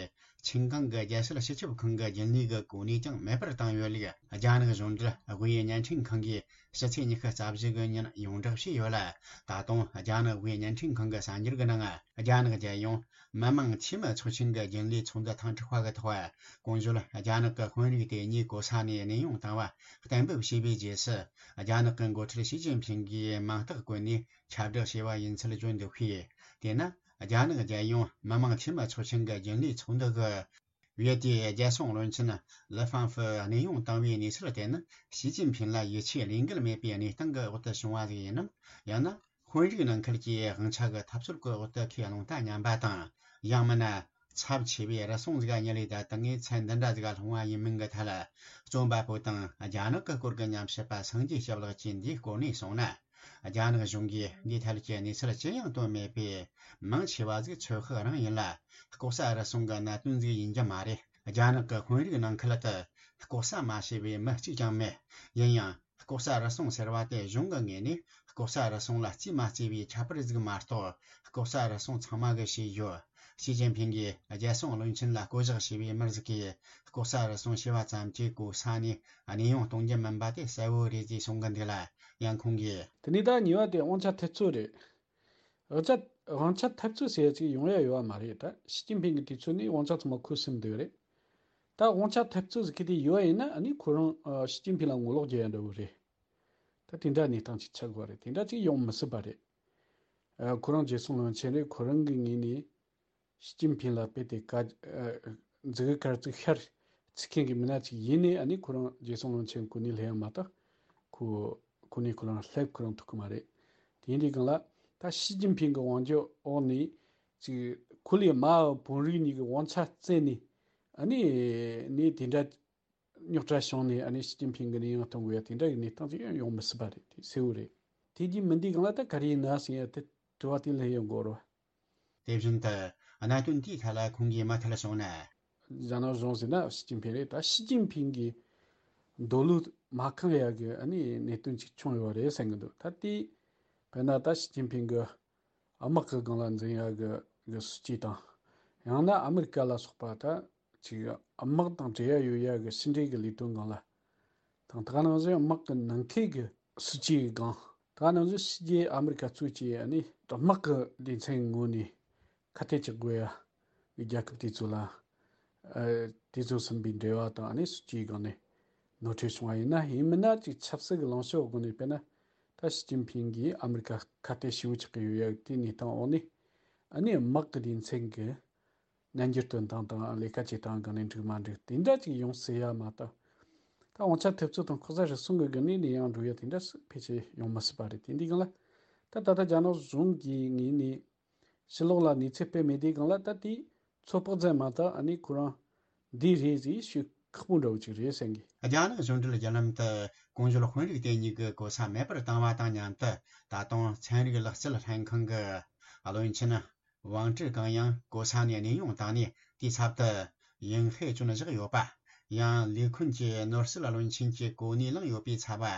ཆིན་ཀང་གི་རྒྱལ་སྲིད་སྤྱི་ཁྱབ་ཁང་གི་རྒྱུན་ལས་ཀྱི་གོ་གནས་ཀྱང་མེད་པར་བཏང་ཡོད་ལུགས་རྒྱ་ནག་གཞུང་འབྲེལ་དབུས་བརྙན་འཕྲིན་ཁང་གིས་ཕྱི་ཚེས་ཉི་ཤུ་རྩ་བཞི་གི་ཉིན་ཡོངས་བསྒྲགས་བྱས་ཡོད་ལ། ད་དུང་རྒྱ་ནག་དབུས་བརྙན་འཕྲིན་ཁང་གི་གསར་འགྱུར་གྱི་ནང་། རྒྱ་ནག་རྒྱལ་ཡོངས་མི་དམངས་འཐུས་མི་ཚོགས་ཆེན་གྱི་རྒྱུན་ལས་ཚོགས་འདུ་ཐེངས་དྲུག་པ་གི་ཐོག་གོང་བརྗོད་རྒྱ་ནག་གི་དཔོན་རིགས་དེ་ཉིད་གོ་ས་ནས་གནས་དབྱུང་བཏང་བ་གཏན་འབེབས་བྱས་པའི་རྗེས་སུ། རྒྱ་ནག་གི་འགོ་ཁྲིད་ཞི་ཅིན་ཕིང་གིས་མིང་རྟགས་བཀོད་ནས་ཁྱབ་བསྒྲགས་བྱས་པ་ཡིན་ཚུལ་བརྗོད་འདུག་པས། དེས་ན། རྒྱ་ནག་རྒྱལ་ཡོངས་མི་དམངས་འཐུས་མི་ཚོགས་ཆེན་གྱི་རྒྱུན་ལས་ཚོགས་འདུ་གི་བེད་དེ་རྒྱལ་སྲུང་བློན་ཆེན་ལི་ཧྥང་ཧྥུ་གནས་དབྱུང་བཏང་བའི་གནས་ཚུལ་དེ་ནི་ཞི་ཅིན་ཕིང་ལ་ཡིད་ཆེས་བློས་འགེལ་མེད་པའི་གནས་སྟངས་ཀྱི་འོག་ཏུ་བྱུང་བ་ཞིག་ཡིན་ནམ། ཡང་ན་དཔོན་རིགས་ནང་ཁུལ་གྱི་དབང་ཆ་གི་འཐབ་རྩོད་ཀྱི་འོག་ཏུ་ཁས་བླངས་ལྟ་ཉམས་པ་དང་། ཡང་མིན་ན། ཚབས་ཆེ་བའི་རུལ་སུངས་ཟིག་ཉིད་ལས་ད་ལྟ་ངས་ཚད་འདི་འདྲ་ཟིག་སློང་བ་ཡིན་མིན་གྱི་ཐད། རྩོམ་པ་པོ་དང་རྒྱ་ནག་གི་སྐོར་གྱི་ཉམས་ཞིབ་པ་སངས་རྒྱས་སྐྱབས་ལགས་ཀྱིས་འདིའི་སྐོར་ནས་གསུངས་ན། རྒྱ་ནག་གཞུང་གིས་འདིའི་ཐད་ཀྱི་གནས་ཚུལ་ཅི་ཡང་བཏོན་མེད་པས། མང་ཆེ་བ་ཟིག་ཚོད་དཔག་རང་ཡིན་ལ། ལྐོག་ཟ་རུལ་སུངས་ཀྱི་གནད་དོན་ཟིག་ཡིན་རྒྱུ་མ་རེད། རྒྱ་ནག་གི་དཔོན་རིགས་ནང་ཁུལ་དུ་ལྐོག་ཟ་མ་བྱས་པའི་མི་གཅིག་ཀྱང་མེད། ཡིན་ཡང་། ལྐོག་ཟ་རུལ་སུངས་ཟེར་བ་དེ་གཞུང་གི་ངོས་ནས་ལྐོག་ཟ་རུལ་སུངས་ལ་རྩིས་མ་རྩིས་པའི་ཁྱད་པར་ཟིག་མ་གཏོགས། ལྐོག་ཟ་རུལ་སུངས་ཚང་མ་གིས་བྱས་ཡོད། ཞི་ཅིན་ཕིང་གིས་རྒྱལ་སྲུང་བློན་ཆེན་ལ་བསྐོ་གཞག་བྱས་པའི་མི་ཟིག་གིས་ལྐོག་ཟ་རུལ་སུངས་བྱས་པ་ཙམ་གྱིས་གོ་ས་ནས་གནས་དབྱུང་གཏོང་རྒྱུ་མིན་པ་དེ་གསལ་བོ་རེད་ཅེས་གསུང་གི་འདུག་ལ། ཡང་ཁོང་གིས། དེ་ནས་ད་གཉིས་པ་དེ་དབང་ཆ་འཐབ་རྩོད་རེད། དབང་ཆ་དབང་ཆ་འཐབ་རྩོད་ཟེར་ཡ་ཅིག་ཡོང་ཡ་ཡོད་པ་མ་རེད། ད་ཞི་ཅིན་ཕིང་གི་དུས་ཚོད་ནས་དབང་ཆ་ཚང་མ་ཁོ་ཟིན་བསྡད་ཡོད་རེད། ད་དབང་ཆ་འཐབ་རྩོད་ཟེར་གི་དེ་ཡོད་ཡིན་ན། ཨ་ནི་ཁོ་རང་ཨ་ཞི་ཅིན་ཕིང་ལ་ངོ་ལོག་རྒྱག་ཡ་འདྲ་བོ་རེད། ད་དེ་འདྲ་གནས་སྟངས་ཅིག་ཆགས་དགོས་རེད། དེ་འདྲ་ཅིག་ཡོང་མི་སྲིད་པ་རེད། ཨ་ཁོ་རང་རྒྱལ་སྲུང་བློན་ཆེན་རེད། ཁོ་རང་གི་ངོས་ནས་ཞི་ཅིན་ཕིང་ལ་དཔེ་དེ་ཀ་ཨ་མཛུ་གུ་དཀར་བཙུགས་ཤར་ཚིག་མཁན་གྱི་མི་སྣ་ཅིག་ཡིན་ནའི། ཨ་ནི་ཁོ་རང་རྒྱལ་སྲུང་བློན་ཆེན་གོ་གནས་སླེབས་ཡ་མ་གཏོགས་ཁོ་གོ་གནས་ཁོ་རང་སླེབས་ཁོ་རང་ཐུབ་ཀྱི་མ་རེད། དེ་ཡིན་དུས་སྒང་ལ་ད་ཞི་ཅིན་ཕིང་གི་དབང་སྒྱུར་འོག་ནས་ཅིག་ཁོ་ལས་མ་དཔོན་རིགས་གཉིས་ཀྱི་དབང་ཆ་བཙལ་ནས། ཨ་ནི་ནས་དེ་འདྲ་རྙོག་དྲ་བྱུང་ནས། ཨ་ནི་ཞི་ཅིན་ཕིང་གི་གནས་དབྱུང་གཏོང་དགོས་ཡ་དེ་འདྲ་གི་གནས་སྟངས་ཅིག་ཡང་ཡོང་མི་སྲིད་པ་རེད། དེ་གསལ་བོ་རེད། དེ་གྱིས་མིན་དུས་སྒང་ལ་ད་ག་རེ་ཡིན་ན་ཟེར་ཡ་དེ་དྲི་བ་དེ་ལ་ཡང་དགོས་རེད་བ། དེ་བཞིན་དུ་གནད་དོན་དེའི་ཐད་ལ་ཁོང་གིས་མུ་མཐུད་གསུངས་ན། རྒྱ་ནག་གཞུང་ཟེར་ན་ཞི་ཅིན་ཕིང་རེད། ད་ཞི་ཅིན་ཕིང་གི་འདོད་བློ་མ་ཁེངས་ཡ་གི་ཨ་ནི་གནད་དོན་ཅིག་བྱུང་ཡོད་རེད་བསམ་གི་འདུག་ད་དེ་དཔེར་ན་ད་ཞི་ཅིན་ཕིང་གི་དམག་གི་སྒང་ལ་འཛིང་ཡ་གི་གི་སྲིད་ཇུས་དང་། ཡང་ན་ཨ་མི་རི་ཀ་ལ་སོགས་པ་ད་ཅིག་དམག་དང་འབྲེལ་ཡ་ཡོད་ཡ་གི་ཕྱི་འབྲེལ་གི་ལས་དོན་སྒང་ལ་དང་། ད་ག་ནང་བཞིན་དམག་གི་ནང་འཁོད་གི་སྲིད་ཇུས་སྒང་། ད་ག་ནང་བཞིན་ཕྱི་རྒྱལ་ཨ་མི་རི་ཀ་གཙོས་ཀྱི་ཨ་ནི་དམག་གི་སྡེ་ཚན་ངོས་ནས་ཁ་གཏད་གཅོག་དགོས་ཡ་གི་རྒྱལ་ཁབ་དེ་ཚོ་ལ། ཨ་དེ་ཚོ་ཟིན་པའི་འབྲེལ་བ་དང་། ཨ་ནི་སྲིད་ཇུས་སྒང་ནས་ནོར་འཁྲུལ་བྱུང་བ་ཡིན་ན། ཡིན་མིན་ན་ཅིག་ཆབ་སྲིད་ཀྱི་ལངས་ཕྱོགས་སྒོ་ནས་དཔེར་ན་ད་ཞི་ཅིན་ཕིང་གིས་ཨ་མི་རི་ཀ་ཁ་གཏད་ཞེ་པོ་ཆགས་ཀྱི་ཡོད་ཡ་དེའི་གནས་སྟངས་འོག་ནས། ཨ་ནི་དམག་གི་སྡེ་ཚན་གྱི་སྙན་འགྱུར་སྟོན་སྟངས་དང་། ལས་ཀ་བྱེད་སྟངས་སྒང་ནས་འགྲིག་མ་འགྲིག་དེ་འདྲ་ཅིག་ཡོང་སྲིད་ཡ་མ་གཏོགས། ད་དབང་ཆ་འཐབ་རྩོད་དང་ལྐོག་ཟ་རུལ་སུངས་ཀྱི་སྒང་ནས་ནས་ཡང་འགྲོ་ཡ་དེ་འདྲ་ཕལ་ཆེར་ཡོང་མི་སྲིད་པ་རེད། དེ་འདི་སྒང་ལ་ད་ད་ལྟ་རྒྱ་ནག་གཞུང་གི་ངོས་ནས་ཕྱི་ལོགས་ལ་གནས་ཚུལ་སྤེལ་མེད་དུས་སྒང་ལ། ད་དེ་ཚོད་དཔག་ཙམ་མ་གཏོགས་ཨ་ནི་ཁོ་རང་འདི་རེད་ཟེར་ཞུ་ཁག་པོ་འདྲ་བོ་ཅིག་རེད་བསམ་གི། རྒྱ་ནག་གཞུང་འབྲེལ་བརྒྱུད་ལམ་དུ་གོང་བརྗོད་དཔོན་རིགས་དེ་གཉིས་ཀྱི་གོ་ས་མེད་པར་བཏང་བ་དང་མཉམ་དུ། ད་དུང་ཚན་རིག་ལག་རྩལ་ལྷན་ཁང་གི་བློན་ཆེན་ཝང་ཀྲི་ཀང་ཡང་གོ་ས་ནས་གནས་དབྱུང་བཏང་ནས། དེའི་ཚབ་ཏུ་ཡིན་ཧེ་ཅུན་བཞག་ཡོད་པ། ཡང་ལས་ཁུན་གྱི་ནོར་སྲིད་བློན་ཆེན་གྱི་གོ་གནས་བླངས་ཡོད་པའི་ཚབ་པ་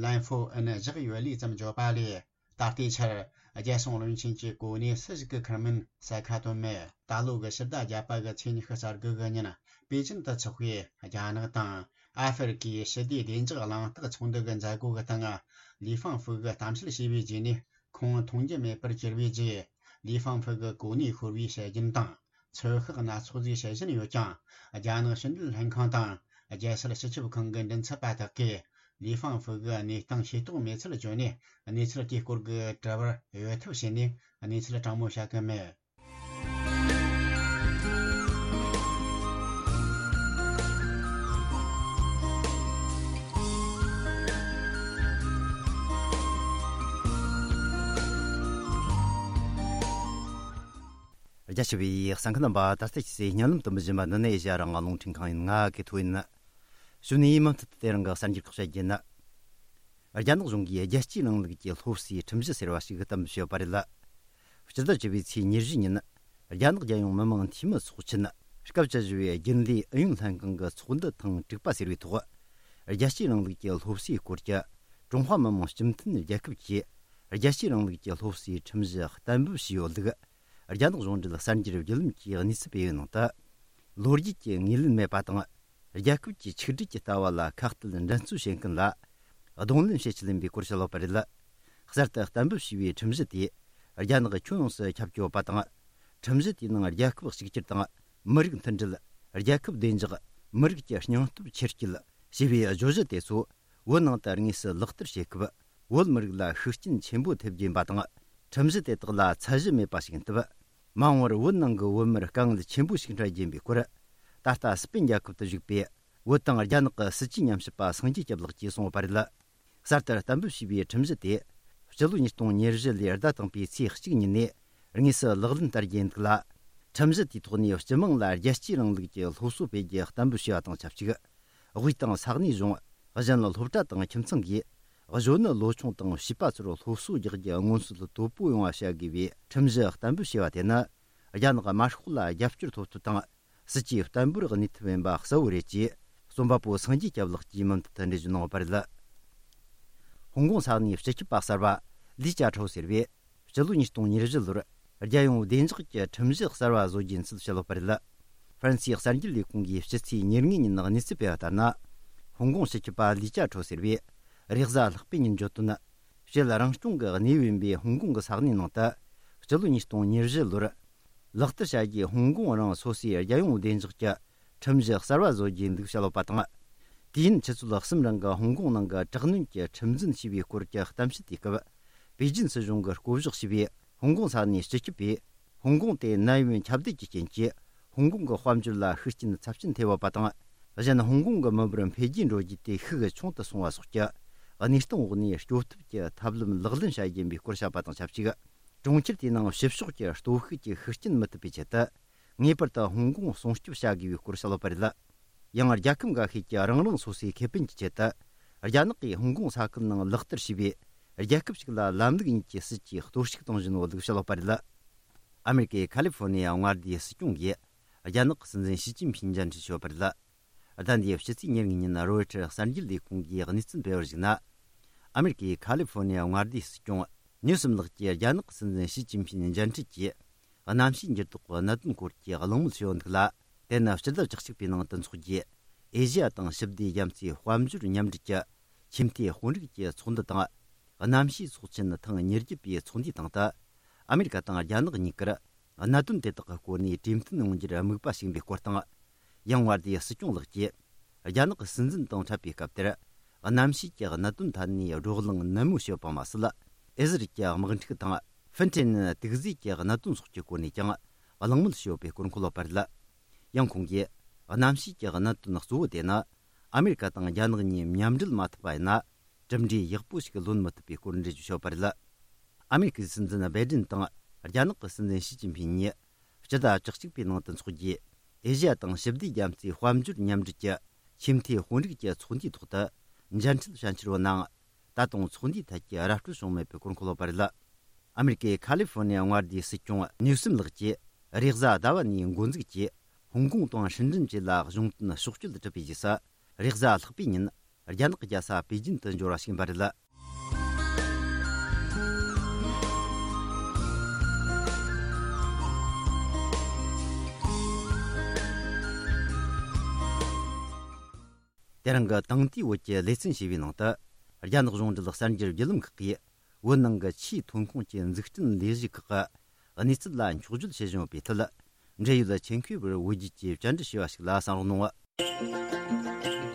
ལན་ཧྥོ་ཨིན་བཞག་ཡོད་ལུགས་ཙམ་བརྗོད་པ་ལས། ད་ལྟའི་ཆར་རྒྱལ་སྲུང་བློན་ཆེན་གྱི་གོ་གནས་སུ་ཞིག་གིས་འཁུར་མིན་གསལ་ཁ་བཏོན་མེད། ད་ལོ་གི་ཕྱི་ཟླ་བརྒྱད་པ་གི་ཚེས་ཉི་ཤུ་རྩ་དགུ་གི་ཉིན་པེ་ཅིན་དུ་འཚོགས་པའི་རྒྱ་ནག་དང་ཨ་ཧྥེ་རི་ཁའི་ཞི་བདེའི་བདེ་འཇགས་གླེང་སྟེགས་ཚོགས་འདུ་གི་མཛད་སྒོ་གི་སྟེང་། ལི་ཧྥང་ཧྥུ་གིས་གཏམ་བཤད་བྱས་པའི་རྗེས་ནས་ཁོང་མཐོང་རྒྱུ་མེད་པར་གྱུར་བའི་རྗེས། ལི་ཧྥང་ཧྥུ་གི་གོ་གནས་ཤོར་བའི་དཔྱད་རྒྱུན་དང་ཚོད་དཔག་སྣ་ཚོགས་ཟིག་བྱེད་བཞིན་ཡོད་ཀྱང་། རྒྱ་ནག་ཕྱི་འབྲེལ་ལྷན་ཁང་དང་ རྒྱལ་སྲིད་སྤྱི་ཁྱབ་ཁང་གི་མགྲིན་ཚབ་པ་དག་གིས་ལི་ཧྥང་ཧྥུ་གི་གནས་སྟངས་ཤེས་རྟོགས་མེད་ཚུལ་བརྗོད་ནས། གནས་ཚུལ་དེའི་སྐོར་གྱི་དྲི་བར་འོས་ཐབས་བྱས་ནས་གནས་ཚུལ་དྲང་མོ་བཤད་ཀྱི་མེད། རྒྱ་ཆེ་བའི་གསན་མཁན་རྣམ་པ། ད་ལྟ་ཁྱེད་ཚོས་སྙན་ལམ་དུ་འབུལ་བཞིན་པ་འདི་ནི་ཨེ་ཤ་ཡ་རང་དབང་རླུང་འཕྲིན་ཁང་ཡིན། ང་གི་ཐོ་ཡིན། གཞུག་ནས་མུ་མཐུད་དུ་དེ་རིང་གི་གསར་འགྱུར་ཁག་བཤད་རྒྱུ་ཡིན། རྒྱ་ནག་གཞུང་གིས་རྒྱལ་གཅེས་རིང་ལུགས་ཀྱི་སློབ་གསོའི་ཁྲིམས་གཞི་ཟེར་བ་ཞིག་གཏན་འབེབས་བྱས་ཡོད་པ་རེད། སྤྱི་ཟླ་བཅུ་པའི་ཚེས་ཉེར་བཞི་ཉིན། རྒྱ་ནག་རྒྱལ་ཡོངས་མི་དམངས་འཐུས་མི་ཚོགས་ཆེན་སྐབས་བཅུ་བཞི་པའི་རྒྱུན་ལས་ཨུ་ཡོན་ལྷན་ཁང་གི་ཚོགས་འདུ་ཐེངས་དྲུག་པ་ཟེར་བའི་ཐོག་རྒྱལ་གཅེས་རིང་ལུགས་ཀྱི་སློབ་གསོའི་སྐོར་གྱི་ཀྲུང་ཧྭ་མི་དམངས་སྤྱི་མཐུན་རྒྱལ་ཁབ་ཀྱིས་རྒྱལ་གཅེས་རིང་ལུགས་ཀྱི་སློབ་གསོའི་ཁྲིམས་གཞི་གཏན་འབེབས་བྱས་ཡོད་ལུགས། རྒྱ་ནག་གཞུང་འབྲེལ་གསར་འགྱུར་བརྒྱུད་ལམ་གྱིས་གནས་ཚུལ་སྤེལ་བའི་ནང་དུ། ལོ་རྒྱུས་ཀྱི་ངོས་ལེན་མེད་པ་དང་། རྒྱལ་ཁབ་ཀྱི་ཆིག་སྒྲིལ་གྱི་ལྟ་བ་ལ་ཁ་གཏད་འགྲན་རྩོད་བྱེད་མཁན་ལ་གདོང་ལེན་བྱེད་ཆེད་ཡིན་པའི་སྐོར་བཤད་ཡོད་པ་རེད། གསར་དུ་གཏན་འབེབས་བྱས་པའི་ཁྲིམས་གཞི་དེས་རྒྱ་ནག་ཁྱོན་ཡོངས་སུ་ཁྱབ་ཀྱི་ཡོད་པ་དང་། ཁྲིམས་གཞི་དེའི་ནང་རྒྱལ་ཁབ་གཅིག་གྱུར་དང་། མི་རིགས་མཐུན་སྒྲིལ། རྒྱལ་ཁབ་བདེ་འཇགས། མི་རིགས་ཀྱི་སྙིང་སྟོབས་ཆེར་སྐྱེད་ཞེས་པའི་བརྗོད་གཞི་དེ་ཚོ་བོད་ནང་དུ་དངོས་སུ་ལག་བསྟར་བྱེད་སྐབས། བོད་མི་རིགས་ལ་ཤུགས་རྐྱེན་ཆེན་པོ་ཐེབས་རྒྱུ་ཡིན་པ་དང་། ཁྲིམས་གཞི་དེ་དག་ལ་ཚད་གཞི་མེད་པ་ཞིག་ཡིན་སྟབས། མ་འོངས་པར་བོད་ནང་གི་བོད་མིར་དཀའ་ངལ་ཆེན་པོ་ཞིག་འཕྲད་རྒྱུ་ཡིན་པའི་སྐོར། ད་ལྟ་སི་པན་རྒྱལ་ཁབ་ཏུ་བཞུགས་པའི་བོད་དང་རྒྱ་ནག་གི་སྲིད་ཇུས་ཉམས་ཞིབ་པ་སངས་རྒྱས་སྐྱབས་ལགས་ཀྱིས་གསུངས་ཡོད་པ་རེད། གསར་དུ་གཏན་འབེབས་བྱས་པའི་ཁྲིམས་གཞི་དེ། སྤྱི་ལོ་ཉིས་སྟོང་ཉེར་བཞི་ལོའི་ཟླ་དང་པོའི་ཚེས་གཅིག་ཉིན་ནས་དངོས་སུ་ལག་ལེན་བསྟར་རྒྱུ་ཡིན་འདུག་ལ། ཁྲིམས་གཞི་དེའི་ཐོག་ནས་སྤྱི་དམངས་ལ་རྒྱལ་གཅེས་རིང་ལུགས་ཀྱི་སློབ་གསོ་སྤེལ་རྒྱུ་གཏན་འབེབས་བྱས་པ་དང་ཆབས་ཅིག་དབུས་དང་ས་གནས་གཞུང་། གཞན་སློབ་གྲྭ་དང་ཁྱིམ་ཚང་གིས་གཞོན་ནུ་ལོ་ཆུང་དང་བྱིས་པ་ཚོར་སློབ་གསོ་རྒྱག་རྒྱུ་མངོན་གསལ་དོད་པོ་ཡོང་བ་བྱ་དགོས་པའི་ཁྲིམས་གཞི་གཏན་འབེབས་བྱས་པ་དེ་ནི། རྒྱ་ནག་དམར་ཤོག་ལ་རྒྱབ་སྐྱོར་ཐོབ་ཐབས་དང་། སྲིད་ཇུས་བརྟན་པོར་གནས་ཐབས་ཡིན་པ་གསལ་བོ་རེད་ཅེས། རྩོམ་པ་པོ་སངས་རྒྱས་སྐྱབས་ལགས་ཀྱིས་མུ་མཐུད་དུ་འགྲེལ་བརྗོད་གནང་ཡོད་པ་རེད། ཧོང་ཀོང་ས་གནས་སྤྱི་ཁྱབ་པ་གསར་པ་ལི་ཅཱ་ཁྲའོ་ཟེར་བས། སྤྱི་ལོ་ཉིས་སྟོང་ཉེར་བཞི་ལོར་རྒྱལ་ཡོངས་བདེ་འཇགས་ཀྱི་ཁྲིམས་གཞི་གསར་བ་བཟོ་རྒྱུ་ཡིན་ཚུལ་བཤད་ཡོད་པ་རེད། ཧྥ་རན་སིའི་གསར་འགྱུར་ལས་ཁུངས་ཀྱིས་ཕྱི་ཚེས་ཉེར་ལྔ་ཉིན་གནས་ཚུལ་སྤེལ་བ་ལྟར་ན། ཧོང་ཀོང་སྤྱི་ཁྱབ་པ་ལི་ཅཱ་ཁྲའོ་ཟེར་བས། རེས་གཟའ་ལྷག་པའི་ཉིན་བརྗོད་དོན། སྤྱི་ལ་རང་སྐྱོང་གི་གནས་བབ་ཡིན་པའི་ཧོང་ཀོང་གི་ས་གནས་ནང་དུ། སྤྱི་ལོ་ཉིས་སྟོང་ཉེར་བཞི་ལོར། ལག་བསྟར་བྱ་རྒྱུའི་ཧོང་ཀོང་རང་སོ་སོའི་རྒྱལ་ཡོངས་བདེ་འཇགས་ཀྱི་ཁྲིམས་གཞི་གསར་བ་བཟོ་རྒྱུའི་འདུག་བཤད་ཡོད་པ་དང་། དུས་ཡུན་ཆུ་ཚོད་གསུམ་རིང་གི་ཧོང་ཀོང་ནང་གི་དྲག་གནོན་གྱི་ཁྲིམས་འཛིན་བྱས་པའི་སྐོར་གྱི་གཏམ་བཤད་དེའི་སྐབས། པེ་ཅིན་སྲིད་གཞུང་གིས་བསྐོ་གཞག་བྱས་པའི་ཧོང་ཀོང་ས་གནས་སྤྱི་ཁྱབ་པས། ཧོང་ཀོང་དེ་ནད་ཡམས་ཁྱབ་གདལ་གྱི་རྐྱེན་གྱིས། ཧོང་ཀོང་གི་དཔལ་འབྱོར་ལ་ཤུགས་རྐྱེན་ཚབས་ཆེན་ཐེབས་ཡོད་པ་དང་། གཞན་ཧོང་ཀོང་གི་མི་འབོར་འཕེལ་རྒྱས་འགྲོ་རྒྱུ་དེ་ཤུགས་ཆུང་དུ་སོང་བ་སོགས་ཀྱི་གནས་སྟངས་འོག་ནས་སྐྱོབ་ཐབས་ཀྱི་ཐབས་ལམ་ལག་ལེན་བྱ་རྒྱུ་ཡིན་པའི་སྐོར་བཤད་པ་དང་ཆབས་ཅིག་གྲོང་ཁྱེར་དེའི་ནང་ཕྱི་ཕྱོགས་ཀྱི་སྟོབས་ཤུགས་ཀྱིས་ཤུགས་རྐྱེན་མི་ཐེབས་པའི་ཆེད་དུ། ངེས་པར་དུ་ཧོང་ཀོང་སྲུང་སྐྱོབ་བྱ་དགོས་པའི་སྐོར་བཤད་ཡོད་པ་རེད། ཡང་རྒྱལ་ཁབ་འགའ་ཤས་ཀྱིས་རང་རང་སོ་སོའི་ཁེ་ཕན་གྱི་ཆེད་དུ། རྒྱ་ནག་གིས་ཧོང་ཀོང་ས་ཁུལ་ནང་ལག་བསྟར་བྱས་པའི་རྒྱལ་ཁབ་ཞིག་ལ་ལམ་ལུགས་གཉིས་ཀྱི་སྲིད་ཇུས་གཏོར་བཤིག་གཏོང་བཞིན་ཡོད་ལུགས་བཤད་ཡོད་པ་རེད། ཨ་མེ་རི་ཀའི་ཁ་ལི་ཧྥོ་ནི་ཡ་མངའ་སྡེའི་སྲིད་སྐྱོང་གིས་རྒྱ་ནག་གི་སྲིད་འཛིན་ཞི་ཅིན་ཕིན་མཇལ་འཕྲད་བྱས་ཡོད་པ་རེད། ཟླ་འདིའི་ཕྱི་ཚེས་ཉེར་གཉིས་ཉིན་རོའི་ཊར་གསར་འགྱུར་ལས་ཁུངས་ཀྱིས་གནས་ཚུལ་སྤེལ་བར་གཞིགས་ན། ཨ་མེ་རི་ཀའི་ཁ་ལི་ཧྥོ་ནི་ཡ་མངའ་སྡེའི་སྲིད་སྐྱོང་ནིའུ་སམ་ལགས་ཀྱིས་རྒྱ་ནག་གི་སྲིད་འཛིན་ཞི་ཅིན་ཕིན་མཇལ་འཕྲད་ཀྱིས། གནམ་གཤིས་འགྱུར་ལྡོག་གི་གནད་དོན་སྐོར་གྱི་གླེང་མོལ་བྱས་ཡོད་འདུག་ལ། དེ་ནི་སྤྱི་ཟླ་བཅུ་གཅིག་པའི་ནང་དུ་འཚོགས་རྒྱུའི་ཨེ་ཤི་ཡ་དང་ཞི་བདེ་རྒྱ་མཚོའི་དཔལ་འབྱོར་མཉམ་འབྲེལ་གྱི་ཆེས་མཐོའི་དཔོན་རིགས་ཀྱི་ཚོགས་འདུ་དང་། གནམ་གཤིས་ཚོགས་ཆེན་ཐེངས་ཉེར་བརྒྱད་པའི་ཚོགས་འདུའི་སྟེང་དུ། ཨ་མེ་རི་ཀ་དང་རྒྱ་ནག་གཉིས་ཀར་གནད་དོན་དེ་དག་གི་སྐོར་ནས་གྲོས་མཐུན་ཡོང་རྒྱུར་དམིགས་པ་བྱིན་པའི་སྐོར་དང་། ཡང་མངའ་སྡེའི་སྲིད་སྐྱོང་ལགས་ཀྱིས། རྒྱ་ནག་གི་སྲིད་འཛིན་དང་འཕྲད་པའི་སྐབས་དེར། གནམ་གཤིས་ཀྱི་གནད་དོན་ཐད་ནས་བགྲོ་གླེང་ནན་མོ་བྱས་པ་མ་ཟད། ཨེ་ཟི་རལ་གྱི་དམག་འཁྲུག་དང་། ཧྥིན་ཀྲན་དུག་རྫས་ཀྱི་གནད་དོན་སོགས་ཀྱི་སྐོར་ནས་ཀྱང་གླེང་མོལ་བྱས་ཡོད་པའི་སྐོར་འཁོད་ཡོད་པ་རེད། ཡང་ཁོང་གིས། གནམ་གཤིས་ཀྱི་གནད་དོན་གཙོ་བོ་དེ་ནི། ཨ་མེ་རི་ཀ་དང་རྒྱ་ནག་གཉིས་མཉམ་འབྲེལ་མ་ཐུབ་པ་ཡིན་ན། གྲུབ་འབྲས་ཡག་པོ་ཞིག་ལོན་མི་ཐུབ་པའི་སྐོར་འགྲེལ་བརྗོད་བྱས་ཡོད་པ་རེད། ཨ་མེ་རི་ཀའི་སྲིད་འཛིན་བའི་ཌེན་དང་རྒྱ་ནག་གི་སྲིད་འཛིན་ཞི་ཅིན་ཕིན་གཉིས་སྤྱི་ཟླ་བཅུ་གཅིག་པའི་ནང་དུ་འཚོགས་རྒྱུའི་ཨེ་ཤི་ཡ་དང་ཞི་བདེ་རྒྱ་མཚོའི་དཔལ་འབྱོར་མཉམ་འབྲེལ་གྱི་ཆེས་མཐོའི་དཔོན་རིགས་ཀྱི་ཚོགས་འདུའི་ཐོག་ཏུ་མཇལ་འཕྲད་བྱ་འཆར་ཡོད་ནའང་། ད་དུང་ཚོགས་འདུའི་ཐད་ཀྱི་ར་སྤྲོད་བྱུང་མེད་པའི་སྐོར་འཁོད་ཡོད་པ་རེད། ཨ་མེ་རི་ཀའི་ཁ་ལི་ཧྥོ་ནི་ཡ་མངའ་སྡེའི་སྲིད་སྐྱོང་ནིའུ་སིམ་ལགས་ཀྱིས་རེས་གཟའ་ཟླ་བ་ནས་འགོ་འཛུགས་ཀྱིས་ཧོང་ཀོང་དང་ཧྲིན་ཀྲིན་བཅས་ལ་གཞུང་དོན་ཕྱོགས་བསྐྱོད་འགྲུབ་པའི་རྗེས་སུ། རེས་གཟའ་ལྷག་པའི་ཉིན་རྒྱ་ནག་གི་རྒྱལ་ས་པེ་ཅིན་དུ་འབྱོར་བ་ཞིག་ཡིན་པ་རེད། དེ་རིང་གི་དེང་དུས་བོད་ཀྱི་ལེ་ཚན་ཞེས་པའི་ནང་དུ། རྒྱ་ནག་གཞུང་འབྲེལ་གསར་འགྱུར་བརྒྱུད་ལམ་ཁག་གིས། བོད་ནང་གི་ཆུའི་ཐོན་ཁུངས་ཀྱི་འཛུགས་སྐྲུན་ལས་གཞི་ཁག་གི་གནས་ཚུལ་ལ་འཁྱོག་བརྗོད་བྱེད་བཞིན་ཡོད་པའི་ཐད། འབྲེལ་ཡོད་ཆེད་མཁས་པར་བོད་བརྒྱུད་ཀྱིས་བཅར་འདྲི་ཞུས་པ་ཞིག་ལ་གསན་རོགས་གནང་།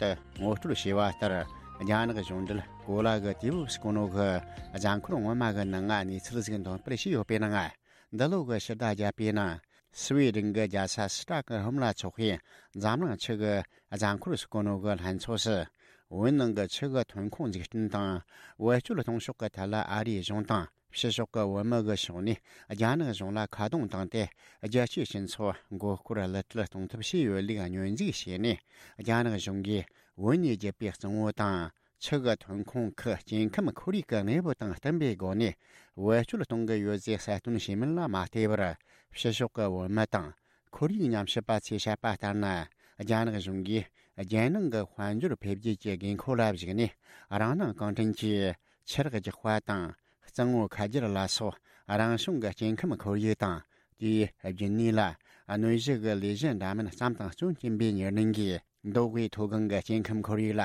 དུ་ངོ་སྤྲོད་བྱས་པ་ལྟར། རྒྱ་ནག་གཞུང་འབྲེལ་གོ་ལ་གི་དུས་བབ་ཟེར་གོ་ནོ་གི་གཟའ་འཁོར་སྔོན་མ་གི་ནང་ང་གནས་ཚུལ་ཟིག་འདོན་སྤེལ་བྱས་ཡོད་པའི་ནང་། འདི་ལོ་གི་ཕྱི་ཟླ་བརྒྱད་པའི་ནང་། སི་ཝེ་ཌེན་གི་རྒྱལ་ས་སི་ཏྲ་ཀི་ཧོམ་ལ་འཚོགས་པའི་འཛམ་གླིང་ཆུ་གི་གཟའ་འཁོར་ཟེར་གོ་ནོ་གི་ལྷན་ཚོགས་སུ། བོད་ནང་གི་ཆུ་གི་ཐོན་ཁུངས་འཛུགས་སྐྲུན་དང་བེད་སྤྱོད་གཏོང་ཕྱོགས་ཀྱི་ཐད་ལ་ཨ་རིའི་གཞུང་དང་། ཕྱི་ཕྱོགས་ཀྱི་བོད་མི་གི་ཕྱོགས་ནས་རྒྱ་ནག་གཞུང་ལ་ཁ་རྡུང་བཏང་སྟེ། རྒྱལ་སྤྱིའི་སྤྱི་ཚོགས་མགོ་སྐོར་གློད་གྲོལ་གཏོང་ཐབས་བྱས་ཡོད་ལུགས་སྙོན་འཛུགས་བྱས་ནས། རྒྱ་ནག་གཞུང་གིས་བོད་ནས་བརྒྱུད་པའི་གཙང་བོ་དང་། ཆུ་གི་ཐོན་ཁུངས་ཁུལ་སྐྱེ་ཁམས་ཁོར་ཡུག་གི་གནས་བབ་དང་བསྟུན་པའི་སྒོ་ནས་བེད་སྤྱོད་གཏོང་གི་ཡོད་ཅེས་གསལ་སྟོན་བྱས་མིན་ལ་མ་བལྟས་པར། ཕྱི་ཕྱོགས་ཀྱི་བོད་མི་དང་ཁོར་ཡུག་ཉམས་ཞིབ་པ་ཚོས་བཤད་པ་ལྟར་ན། རྒྱ་ནག་གཞུང་གིས་རྒྱལ་ནང་གི་དཔལ་འབྱོར་འཕེལ་རྒྱས་ཀྱི་དགོས་མཁོ་ལ་གཞིགས་ནས། རང་སྣང་གང་དྲན་གྱིས་ཆུ་རགས་རྒྱག་པ་དང་། གཙང་བོ་ཁ་སྦྱར་ལ་སོགས་རང་བྱུང་གི་སྐྱེ་ཁམས་ཁོར་ཡུག་དང་། དེའི་རྒྱུན་གནས་ལ་གནོད་གཞི་གི་ལས་གཞི་འདྲ་མིན་བརྩམས་དང་སྐྱོན་བསྐྱུན་པའི་ཉེར་ལེན་གྱིས། མདོ་དབུས་མཐོ་སྒང་གི་སྐྱེ་ཁམས་ཁོར་ཡུག་ལ་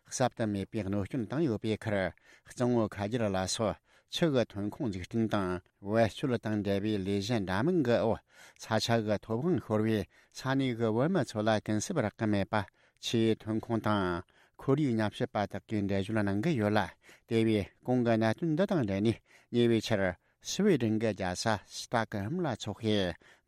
གསབ་ཏུ་མེད་པའི་གནོད་སྐྱོན་བཏང་ཡོད་པའི་ཁར། གཙང་བོ་ཁ་སྦྱར་ལ་སོགས་ཆུ་གི་ཐོན་ཁུངས་འཛུགས་སྐྲུན་དང་བེད་སྤྱོད་དང་འབྲེལ་བའི་ལས་གཞི་འདྲ་མིན་གྱི་འོག་ས་ཆ་གི་ཐོབ་དབང་ཤོར་བའི་ས་གནས་ཀྱི་བོད་མི་ཚོ་ལ་གུན་གསབ་རག་གི་མེད་པ། ཆུའི་ཐོན་ཁུངས་དང་ཁོར་ཡུག་ཉམས་ཞིབ་པ་དག་གིས་འགྲེལ་བརྗོད་གནང་གི་ཡོད་ལ། དེ་བས་གོང་གི་གནད་དོན་འདི་དང་འབྲེལ་ནས་ཉེ་བའི་ཆར། སི་ཝེ་ཌེན་གྱི་རྒྱལ་ས་སི་ཏོག་ཧོམ་ལ་འཚོགས་པའི་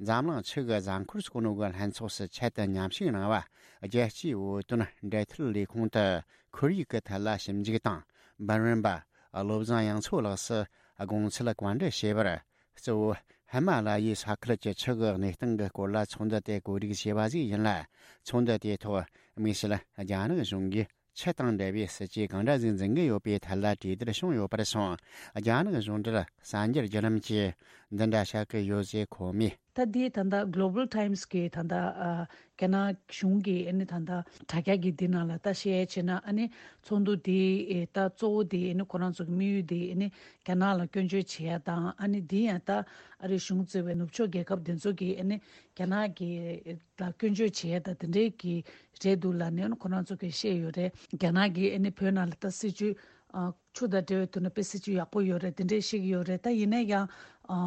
འཛམ་གླིང་ཆུ་གི་གཟའ་འཁོར་ཟེར་གོ་ནོ་གི་ལྷན་ཚོགས་སུ་ཆེད་དུ་མཉམ་ཞུགས་གནང་བ། རྒྱལ་སྤྱིའི་བོད་དོན་འབྲེལ་མཐུད་ལས་ཁུངས་དུ་ཁོར་ཡུག་གི་ཐད་ལ་ཞིབ་འཇུག་དང་འབུམ་རམས་པ་བློ་བཟང་དབྱངས་མཚོ་ལགས་སུ་དགོངས་ཚུལ་བཀའ་འདྲི་བྱས་པར། གཙོ་བོ་ཧི་མ་ལ་ཡའི་ས་ཁུལ་གྱི་ཆུ་གི་གནས་སྟངས་ཀྱི་སྐོར་ལ་ཚོགས་འདུ་དེ་གོ་སྒྲིག་བྱས་པ་ཞིག་ཡིན་ལ། ཚོགས་འདུ་དེའི་ཐོག་དམིགས་བསལ་རྒྱ་ནག་གཞུང་གིས་ཆུ་དང་འབྲེལ་བའི་སྲིད་ཇུས་གང་འདྲ་ཞིག་འཛིན་གྱི་ཡོད་པའི་ཐད་ལ་གྲོས་བསྡུར་བྱུང་ཡོད་པར་སོང་། རྒྱ་ནག་གཞུང་འབྲེལ་གསར་འགྱུར་བརྒྱུད་ལམ་གྱིས་འདི་འདྲ་བཤད་ཀྱི་ཡོད་ཅེས་ཁོ་མོས། ད་འདི་ད་ལྟ་Global Times གི་ད་ལྟ་ཨ་རྒྱ་ནག་གཞུང་གི་ཨ་ནི་ད་ལྟ་དྲ་རྒྱ་གི་འདི་ནང་ལ་ད་བཤད་བྱས་ན། ཨ་ནི་ཚོགས་འདུ་འདི་ཨེ་ད་གཙོ་བོ་འདི་ཨ་ནི་ཁོ་རང་ཚོ་གི་དམིགས་ཡུལ་འདི་ཨ་ནི་རྒྱ་ནག་ལ་སྐྱོན་བརྗོད་བྱེད་ཡ་དང་། ཨ་ནི་འདི་ཡང་ད་ཨ་རིའི་གཞུང་གཙོས་པའི་ནུབ་ཕྱོགས་རྒྱལ་ཁབ་འདི་ཚོ་གི་ཨ་ནི་རྒྱ་ནག་གི་ལ་སྐྱོན་བརྗོད་བྱེད་ཡ་ད་དེ་འདྲའི་གི་རེད་འདུག་ལབ་ནས་ཁོ་རང་ཚོ་གིས་བཤད་ཡོད་རེད། རྒྱ་ནག་གིས་ཨ་ནི་བོད་ནང་ལ་ད་སྲིད་ཇུས་ཨ་ཆུ་དང་འབྲེལ་བའི་ཐོག་ནས་དཔེ་སྲིད་ཇུས་ཡག་པོ་ཡོད་རེད། དེ་འདྲས་བཤད་ཀྱི་ཡོད་རེད། ད་ཡིན་ན་ཡང་ཨ་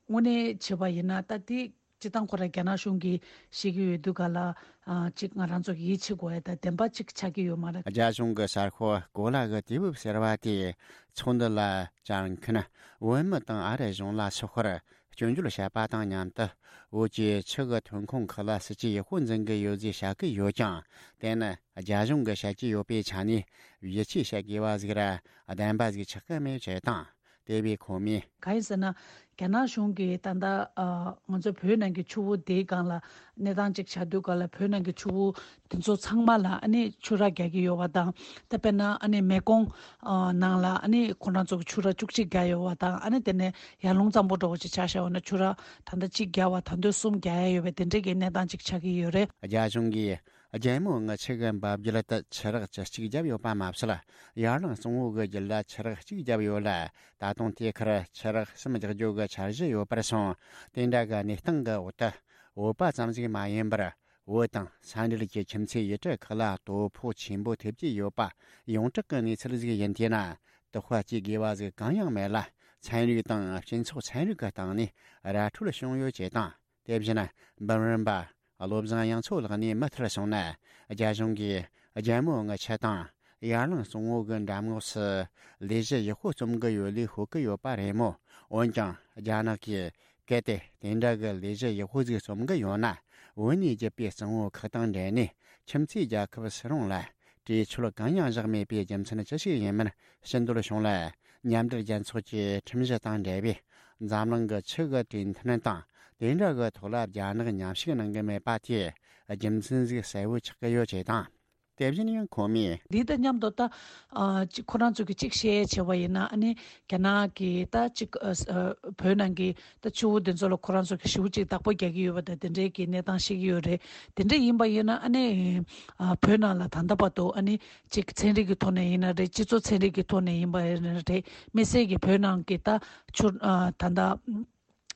དངོས་གནས་བྱས་པ་ཡིན་ན་ད་དེ་སྤྱིར་བཏང་ཁོ་རང་རྒྱ་ནག་གཞུང་གིས་བཤད་ཀྱི་ཡོད་དུས་ག་ལ་ཨ་ཅིག་ང་རང་ཚོ་གིས་ཡིད་ཆེས་དགོས་ཡ་ད་བདེན་པ་ཅིག་ཆགས་ཀྱི་ཡོད་མ་རེད། རྒྱ་གཞུང་གི་གསར་ཤོག་གོ་ལ་གི་དུས་བབ་ཟེར་བ་དེས་ཚོགས་འདུ་ལ་བཅར་མཁན་བོད་མི་དང་ཨ་རི་གཞུང་ལ་སོགས་པར། སྐྱོན་བརྗོད་བྱས་པ་དང་མཉམ་དུ། བོད་ཀྱི་ཆུ་གི་ཐོན་ཁུངས་ཁག་ལ་སྲིད་ཇུས་ཡག་པོ་འཛིན་གྱི་ཡོད་ཅེས་བཤད་ཀྱི་ཡོད་ཀྱང་། དེ་ནི་རྒྱ་གཞུང་གིས་བཤད་ཀྱི་ཡོད་པའི་ཆ་ནས་ཡིད་ཆེས་བྱེད་དགོས་པ་ཟིག་ར་བདེན་པ་ཟིག་ཆགས་ཀྱི་མེད་ཅེས་དང་། དེ་བས་ཁོ་མོས། གང་ཡིན་ཟེར་ན། རྒྱ་ནག་གཞུང་གིས་ད་ལྟ་ཨ་ང་ཚོ་བོད་ནང་གི་ཆུ་བོ་དེའི་སྒང་ལ་གནས་སྟངས་ཅིག་བྱ་དུས་ག་ལ་བོད་ནང་གི་ཆུ་བོ་དེ་ཚོ་ཚང་མ་ལ་ཨ་ནི་ཆུ་རགས་རྒྱག་གི་ཡོད་པ་དང་། ད་དཔེར་ན་ཨ་ནི་མེ་ཀོང་ཨ་ནང་ལ་ཨ་ནི་ཁོ་རང་ཚོ་གི་ཆུ་རགས་བཅུ་གཅིག་བརྒྱབ་ཡོད་པ་དང་། ཨ་ནི་དེ་ནས་ཡར་ཀླུང་གཙང་པོ་འདྲ་བོ་ཅིག་ཆ་བཞག་པ་ན་ཆུ་རགས་ད་ལྟ་གཅིག་བརྒྱབ་པ་ད་དུང་གསུམ་རྒྱག་ཡ་ཡོད་པའི་དེ་འདྲའི་གི་གནས་སྟངས་ཅིག་ཆགས་ཀྱི་ཡོད་རེད། རྒྱ་གཞུང་གིས་རྒྱལ་མོ་ལྔ་ཆུ་གི་འབབ་རྒྱུད་དུ་ཆུ་རགས་བཅུ་གཅིག་བརྒྱབ་ཡོད་པ་མ་ཟད། ཡར་ཀླུང་གཙང་བོ་གི་རྒྱུད་ལ་ཆུ་རགས་གཅིག་བརྒྱབ་ཡོད་ལ། ད་དུང་དེའི་ཁར་ཆུ་རགས་གསུམ་རྒྱག་རྒྱུ་གི་འཆར་གཞི་ཡོད་པར་སོང་། དེ་འདྲ་གི་གནས་སྟངས་གི་འོག་ཏུ། བོད་པ་ཙམ་ཞིག་མ་ཡིན་པར། བོད་དང་ས་འབྲེལ་གྱི་ཁྱིམ་མཚེས་ཡུལ་གྲུ་ཁག་ལ་དོ་ཕོག་ཆེན་པོ་ཐེབས་ཀྱི་ཡོད་པ་ཡོངས་གྲགས་ཀྱི་གནས་ཚུལ་ཞིག་ཡིན། དེས་ན་དོགས་པ་སྐྱེ་དགོས་པ་ཞིག་གང་ཡང་མེད་ལ། ཚན་རིག་དང་སྤྱི་ཚོགས་ཚན་རིག་གི་སྟེང་ནས་ར་འཕྲོད་བྱུང་ཡོད་ཅེས་དང་། དེ་བཞིན་འབུམ་རམས་པ་བློ་བཟང་དབྱངས་མཚོ་ལགས་ནས་མུ་མཐུད་གསུངས་ན། རྒྱ་གཞུང་གིས་རྒྱལ་མོ་ལྔ་ཆུ་དང་ཡར་ཀླུང་གཙང་བོ་གི་འགྲམ་ངོགས་སུ་ལས་གཞི་ཡག་པོ་རྩོམ་གི་ཡོད་ལུགས་ཤོད་ཀྱི་ཡོད་པ་རེད་མོད། འོན་ཀྱང་རྒྱ་ནག་གིས། གལ་ཏེ་དེ་འདྲ་གི་ལས་གཞི་ཡག་པོ་ཟིག་རྩོམ་གི་ཡོད་ན། བོད་ནས་བརྒྱུད་པའི་གཙང་བོ་ཁག་དང་འབྲེལ་ནས་ཁྱིམ་མཚེས་རྒྱལ་ཁབ་སུ་རུང་ལ་གྲོས་ཆོད་གང་ཡང་བཞག་མེད་པའི་རྒྱུ་མཚན་ཅི་ཞིག་ཡིན་མིན་ཕྱི་འདོད་བྱུང་ལ། མཉམ་འབྲེལ་རྒྱལ་ཚོགས་ཀྱི་ཁྲིམས་གཞི་དང་འབྲེལ་བའི་འཛམ་གླིང་གི་ཆུ་གི་གྲོས་མཐུན་དང་དེ་འདྲ་གི་ཐོག་ལ་རྒྱ་ནག་མཉམ་ཞུགས་གནང་གི་མེད་པ་དེ་རྒྱུ་མཚན་ཟིག་གསལ་བོ་ཆགས་ཀྱི་ཡོད་ཅེས་དང་། དེ་བཞིན་ཡང་ཁོ་མོས། འདི་དང་མཉམ་དུ་ད་ཨ་ཅིག་ཁོ་རང་ཚོ་གི་ཅིག་བཤད་བྱས་པ་ཡིན་ན། ཨ་ནི་རྒྱ་ནག་གི་ད་ཅིག་ཨ་ཨ་བོད་ནང་གི་ད་ཆུ་བོ་འདི་ཚོ་ལ་ཁོ་རང་ཚོ་གི་ཞེ་པོ་ཅིག་བདག་པོ་རྒྱག་གི་ཡོད་པ་དང་དེ་འདྲའི་གི་གནས་སྟངས་ཤིག་ཡོད་རེད། དེ་འདྲ་ཡིན་པ་ཡིན་ན་ཨ་ནི་ཨ་བོད་ནང་ལ་ད་ལྟ་བར་དུ་ཨ་ནི་ཅིག་ཚན་རིག་གི་ཐོག་ནས་ཡིན་ན་རེད། སྤྱི་ཚོགས་ཚན་རིག་གི་ཐོག་ནས་ཡིན་པ་ཡིན་ན་རེད། དམིགས་བསལ་གྱི་བོད་ནང་གི་ད་ཆུ་ཨ་ད་ལྟ་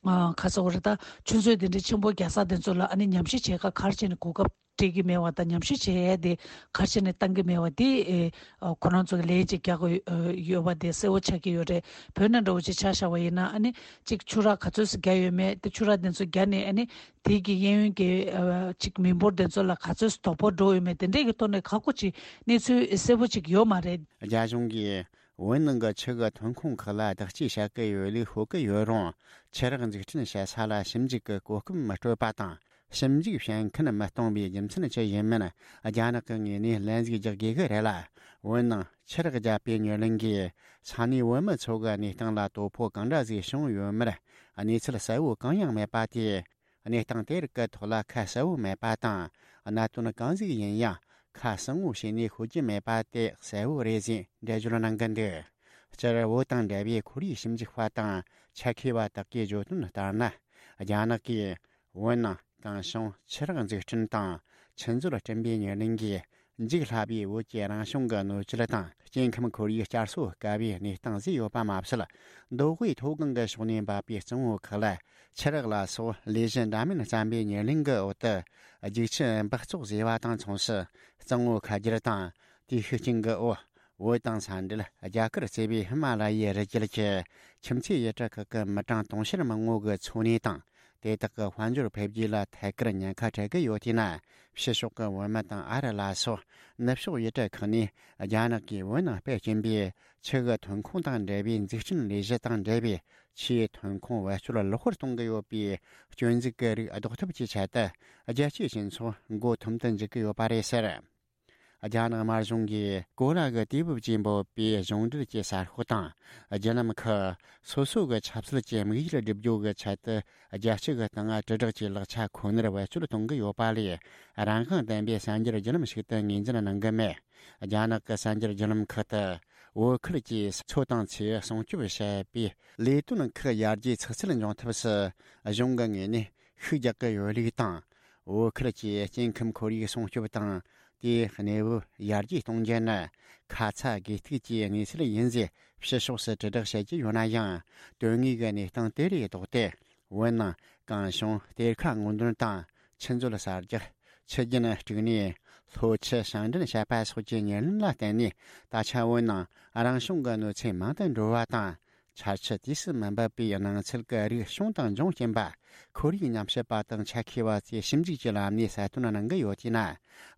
ཨ་ག་ཟེར་དགོས་རེད། ད་ཆུ་མཛོད་དེ་འདྲའི་ཆེན་པོ་རྒྱག་ས་དེ་ཚོ་ལ་ཨ་ནི་ཉམས་ཞིབ་བྱེད་ག་ག་རེ་བྱས་ནས་གོ་སྐབས་ སྤྲད་ཀྱི་མེད་པ་དང་ཉམས་ཞིབ་བྱེད་ཡས་དེ་ག་རེ་བྱས་ནས་བཏང་གི་མེད་པ་དེ་ཨེ་ཁོ་རང་ཚོ་གི་ལན་ཅིག་རྒྱག་གི་ཡོད་པ་དེ་གསལ་པོ་ཆགས་ཀྱི་ཡོད་རེད། བོད་ནང་འདྲ་བོ་ཅིག་ཆ་བཞག་པ་ཡིན་ན་ཨ་ནི་ཅིག་ཆུ་རགས་ག་ཚོད་ཙམ་བརྒྱབ་ཡོད་མེད་དེ་ཆུ་རགས་དེ་ཚོ་བརྒྱབ་ནས་ཨ་ནི་དེ་གི་གཡས་གཡོན་གྱི་ཨ་ཅིག་མི་འབོར་དེ་ཚོ་ལ་ག་ཚོད་ཙམ་དོ་ཕོག་འགྲོ་ཡོད་མེད་དེ་འདྲས་ཀྱི་ཐོག་ནས་ཁག་པོ་ཅིག་གནས་ཚུལ་གསལ་པོ་ཅིག་ཡོད་མ་རེད། རྒྱ་གཞུང་གིས་བོད་ནང་གི་ཆུ་གི་ཐོན་ཁུངས་ཁག་ལ་བདག་གཅེས་བྱ་གི་ཡོད་ལུགས་ཤོད་ཀྱི་ཡོད་རུང་ཆུ་རགས་འཛུགས་སྐྲུན་བྱེད་ས་ལ་ཞིབ་འཇུག་གི་གོ་སྐབས་མི་སྤྲོད་པ་དང་། ཞིབ་འཇུག་བྱེད་མཁན་མི་གཏོང་བའི་རྒྱུ་མཚན་ཅི་ཡིན་མིན་རྒྱ་ནག་གི་ངོས་ནས་ལན་ཟིག་རྒྱག་དགོས་ཀྱི་རེད་ལ། བོད་ནང་ཆུ་རགས་བརྒྱབ་པའི་ཉེར་ལེན་གྱིས་ས་གནས་བོད་མི་ཚོ་གི་གནས་སྟངས་ལ་དོ་ཕོག་གང་འདྲ་ཟིག་བྱུང་ཡོད་མེད་གནས་ཚུལ་གསལ་བོ་གང་ཡང་མེད་པ་དེས། གནས་སྟངས་དེ་རིགས་ཀྱི་ཐོག་ལ་ཁ་གསལ་བོ་མེད་པ་དང་། གནད་དོན་གང་ཟིག་ཡིན་ཡང་ཁ་གསལ་བོ་བྱས་ནས་ཤོད་ཀྱི་མེད་པ་དེ་གསལ་བོ་རེད་ཟེར་འགྲེལ་བརྗོད་གནང་གི་འདུག་སྤྱིར་བོད་དང་འབྲེལ་བའི་ཁོར་ཡུག་ཞིབ་འཇུག་པ་དང་ཆ་མཁས་པ་དག་གིས་བརྗོད་དོན་ལྟར་ན། རྒྱ་ནག་གིས་བོད་ནང་གངས་གཞོང་ཆུ་རགས་འཛུགས་སྐྲུན་དང་ཆུ་མཛོད་བསྐྲུན་པའི་ཉེར་ལེན་གྱིས་འཇིག་སླ་བའི་བོད་ཀྱི་རང་བྱུང་གི་སྣོད་བཅུད་དང་སྐྱེ་ཁམས་ཁོར་ཡུག་བསྐྱར་གསོ་དཀའ་བའི་གནས་སྟངས་བཟོས་ཡོད་པ་མ་ཟད། མདོ་དབུས་མཐོ་སྒང་གི་ཕྱོགས་ནས་འབབ་པའི་གཙང་བོ་ཁག་ལ་ཆུ་རགས་ལ་སོགས་ལས་གཞི་འདྲ་མིན་བརྩམས་པའི་ཉེར་ལེན་གྱི་འོག་ཏུ་རྒྱུག་ཆུ་འབག་བཙོག་བཟོས་པ་དང་མཚུངས་སུ་གཙང་བོ་ཁ་བསྒྱུར་དང་དེའི་ཤུགས་རྐྱེན་གྱི་འོག་བོད་དང་ས་འབྲེལ་རྒྱ་གར་གཙོས་པའི་ཧི་མ་ལ་ཡའི་རི་རྒྱུད་ཀྱི་ཁྱིམ་མཚེས་ཡུལ་གྲུ་ཁག་གི་མི་གྲངས་དུང་ཕྱུར་མང་བོ་གི་འཚོ་གནས་དང་དེ་དག་གི་དཔལ་འབྱོར་འཕེལ་རྒྱས་ལ་ཐད་ཀར་ཉེན་ཁ་འཕྲད་ཀྱི་ཡོད་དུས་ན། ཕྱི་ཕྱོགས་ཀྱི་བོད་མི་དང་ཨ་རི་ལ་སོགས་ནུབ་ཕྱོགས་ཡུལ་གྲུ་ཁག་ནས་རྒྱ་ནག་གིས་བོད་ནང་སྤེལ་གྱིན་པའི་ཆུ་གི་ཐོན་ཁུངས་དང་འབྲེལ་བའི་འཛུགས་སྐྲུན་ལས་གཞི་དང་འབྲེལ་བའི་ཆུའི་ཐོན་ཁུངས་བེད་སྤྱོད་ལེགས་པར་གཏོང་གི་ཡོད་པའི་སྐྱོན་འཛུགས་ཀྱི་རིགས་ཟློག་ཐབས་ཀྱི་ཆེད་དུ་རྒྱལ་སྤྱིའི་སྤྱི་ཚོགས་མགོ་འཐོམ་དུ་འཇུག་གི་ཡོད་པ་རེད་ཟེར། རྒྱ་ནག་དམར་གཞུང་གིས་གོ་ལ་གི་དུས་བབ་ཅེས་འབོད་པའི་གཞུང་འབྲེལ་གྱི་གསར་ཤོག་དང་བརྒྱུད་ལམ་ཁག་སོ་སོ་གི་ཆབ་སྲིད་ཀྱི་དམིགས་ཡུལ་བསྒྲུབ་རྒྱུ་གི་ཆེད་དུ་རྒྱལ་སྤྱི་གི་སྟེང་དྲིལ་བསྒྲགས་ཀྱི་ལག་ཆ་ཁོ་ནར་བེད་སྤྱོད་གཏོང་གི་ཡོད་པ་ལས། རང་དབང་ལྡན་པའི་གསར་འགྱུར་བརྒྱུད་ལམ་ཞིག་ཏུ་ངོས་འཛིན་གནང་གི་མེད། རྒྱ་ནག་གི་གསར་འགྱུར་བརྒྱུད་ལམ་ཁག་ཏུ་བོད་ཁུལ་གྱི་མཚོ་དང་མཚེའུ་སྲུང་སྐྱོབ་བྱེད་པའི་ལས་དོན་ཁག་ཡར་རྒྱས་ཚགས་ཚུད་འབྱུང་ཐབས་སུ་གཞུང་གི་ངོས་ནས་ཤུགས་རྒྱག་གི་ཡོད་ལུགས་དང་། བོད་ཁུལ་གྱི་སྐྱེ་ཁམས་ཁོར་ཡུག་སྲུང་སྐྱོབ་དང་དེའི་གནས་བབ་ཡར་རྒྱས་གཏོང་རྒྱུ་ནི་ཁ་ཚ་དགོས་གཏུགས་ཀྱི་གནས་ཚུལ་ཡིན་ཟེར་ཕྱི་ཕྱོགས་སུ་དྲིལ་བསྒྲགས་བྱེད་ཀྱི་ཡོད་ན་ཡང་། དོན་དངོས་ཀྱི་གནས་སྟངས་དེ་ལས་ལྡོག་སྟེ། བོད་ནང་གངས་གཞོང་གཏེར་ཁ་སྔོག་འདོན་དང་ཆུ་མཛོད་གསར་རྒྱག་ཆུ་རྒྱུན་དཀྲུག་ནས་ལྷོ་ཆུ་བྱང་འདྲེན་བྱས་པ་སོགས་ཀྱི་ཉེར་ལེན་ལ་བརྟེན་ནས། ད་ཆ་བོད་ནང་རང་བྱུང་གི་གནོད་འཚེ་མང་དུ་འགྲོ་བ་དང་། ཆར་ཆུ་དུས་སུ་མི་འབབ་པའི་སྣང་ཚུལ་གྱི་རིགས་བྱུང་དང་འབྱུང་རྐྱེན་པ། ཁོར་ཡུག་ཉམས་ཞིབ་པ་དང་ཆ་མཁས་པ་ཚོས་ཞིབ་འཇུག་གི་ལམ་ནས་གསལ་སྟོན་གནང་གི་ཡོད་དུས་ན།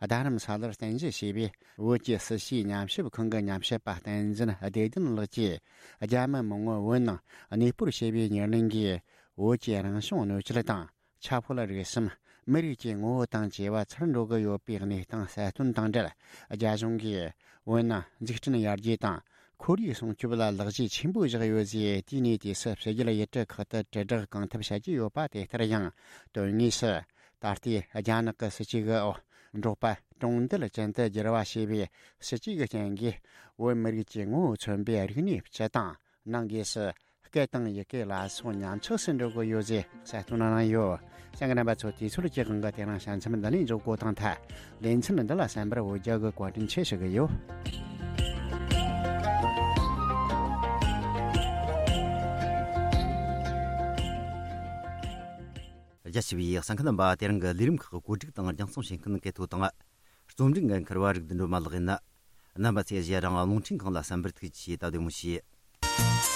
རྡ་རམ་ས་ལར་རྟེན་གཞི་བྱས་པའི་བོད་ཀྱི་སྲིད་ཞུའི་ཉམས་ཞིབ་ཁང་གི་ཉམས་ཞིབ་པ་བསྟན་འཛིན་བདེ་ལྡན་ལགས་ཀྱིས། རྒྱ་མི་མང་བོ་བོད་ནང་གནས་སྤོར་བྱས་པའི་ཉེར་ལེན་གྱིས། བོད་ཀྱི་རང་བྱུང་གནོད་སྐྱེལ་དང་། ཆབ་ཧོལ་རིག་གསུམ། མི་རིགས་ཀྱི་ངོ་བོ་དང་བཅས་པ་ཚར་འགྲོ་གི་ཡོད་པའི་གནས་སྟངས་གསལ་སྟོན་དང་འབྲེལ། རྒྱ་གཞུང་གིས་བོད་ནང་འཛུགས་སྐྲུན་ཡར་རྒྱས་དང་ཁོར་ཡུག་སྲུང་སྐྱོབ་ལ་ལག་རྗེས་ཆེན་པོ་བཞག་ཡོད་ཅེས་དེའི་གནས་དུས་སུ་ཕྱི་རྒྱལ་ཡུལ་གྲུ་ཁག་ཏུ་དྲིལ་བསྒྲགས་གང་ཐུབ་བྱེད་ཀྱི་ཡོད་པ་དེ་ལྟར་ཡང་། དོན་དངོས་སུ་ད་ལྟའི་རྒྱ་ནག་གི་སྲིད་ཇུས་ཀྱི་འོག་འབྲོག་པ་གྲོང་རྡལ་ཅན་དུ་བསྒྱུར་བ་བྱས་པའི་སྲིད་ཇུས་ཀྱི་རྐྱེན་གྱིས། བོད་མི་རིགས་ཀྱི་ངོ་བོ་མཚོན་པའི་རིག་གནས་སྤྱི་དང་། ནང་སྒོས་སུ་སྐད་དང་ཡི་གེ་ལ་སོགས་ཉམས་ཆག་སུ་འགྲོ་གི་ཡོད་ཅེས་གསལ་སྟོན་གནང་ཡོད། གསན་མཁན་རྣམ་པ་ཚོ། དུས་ཚོད་ཀྱི་དབང་གིས་དེ་རིང་ཞལ་འཛོམས་འདི་ནས་འཇོག་དགོས་དང་ཐལ། ལེ་ཚན་འདི་ལ་གསན་པར་འོ་བརྒྱལ་གི་བཀའ་དྲིན་ཆེ་ཞུ་གི་ཡོད། རྒྱ་ཆེ་བའི་གསན་མཁན་རྣམ་པ། དེ་རིང་གི་ལས་རིམ་ཁག་གི་བཀོད་སྒྲིག་དང་རྒྱང་སྲིང་བྱེད་མཁན་སྐལ་ཐོ་དང་། རྩོམ་སྒྲིག་འགན་འཁུར་བ་རིག་ལྡན་སྒྲོལ་མ་ལགས་ཡིན། རྣམ་པ་ཚོས་གཞན་རང་རླུང་འཕྲིན་ཁང་ལ་གསན་པར་ཐུགས་རྗེ་ཆེ། ད་བདེ་མོ་བྱོས།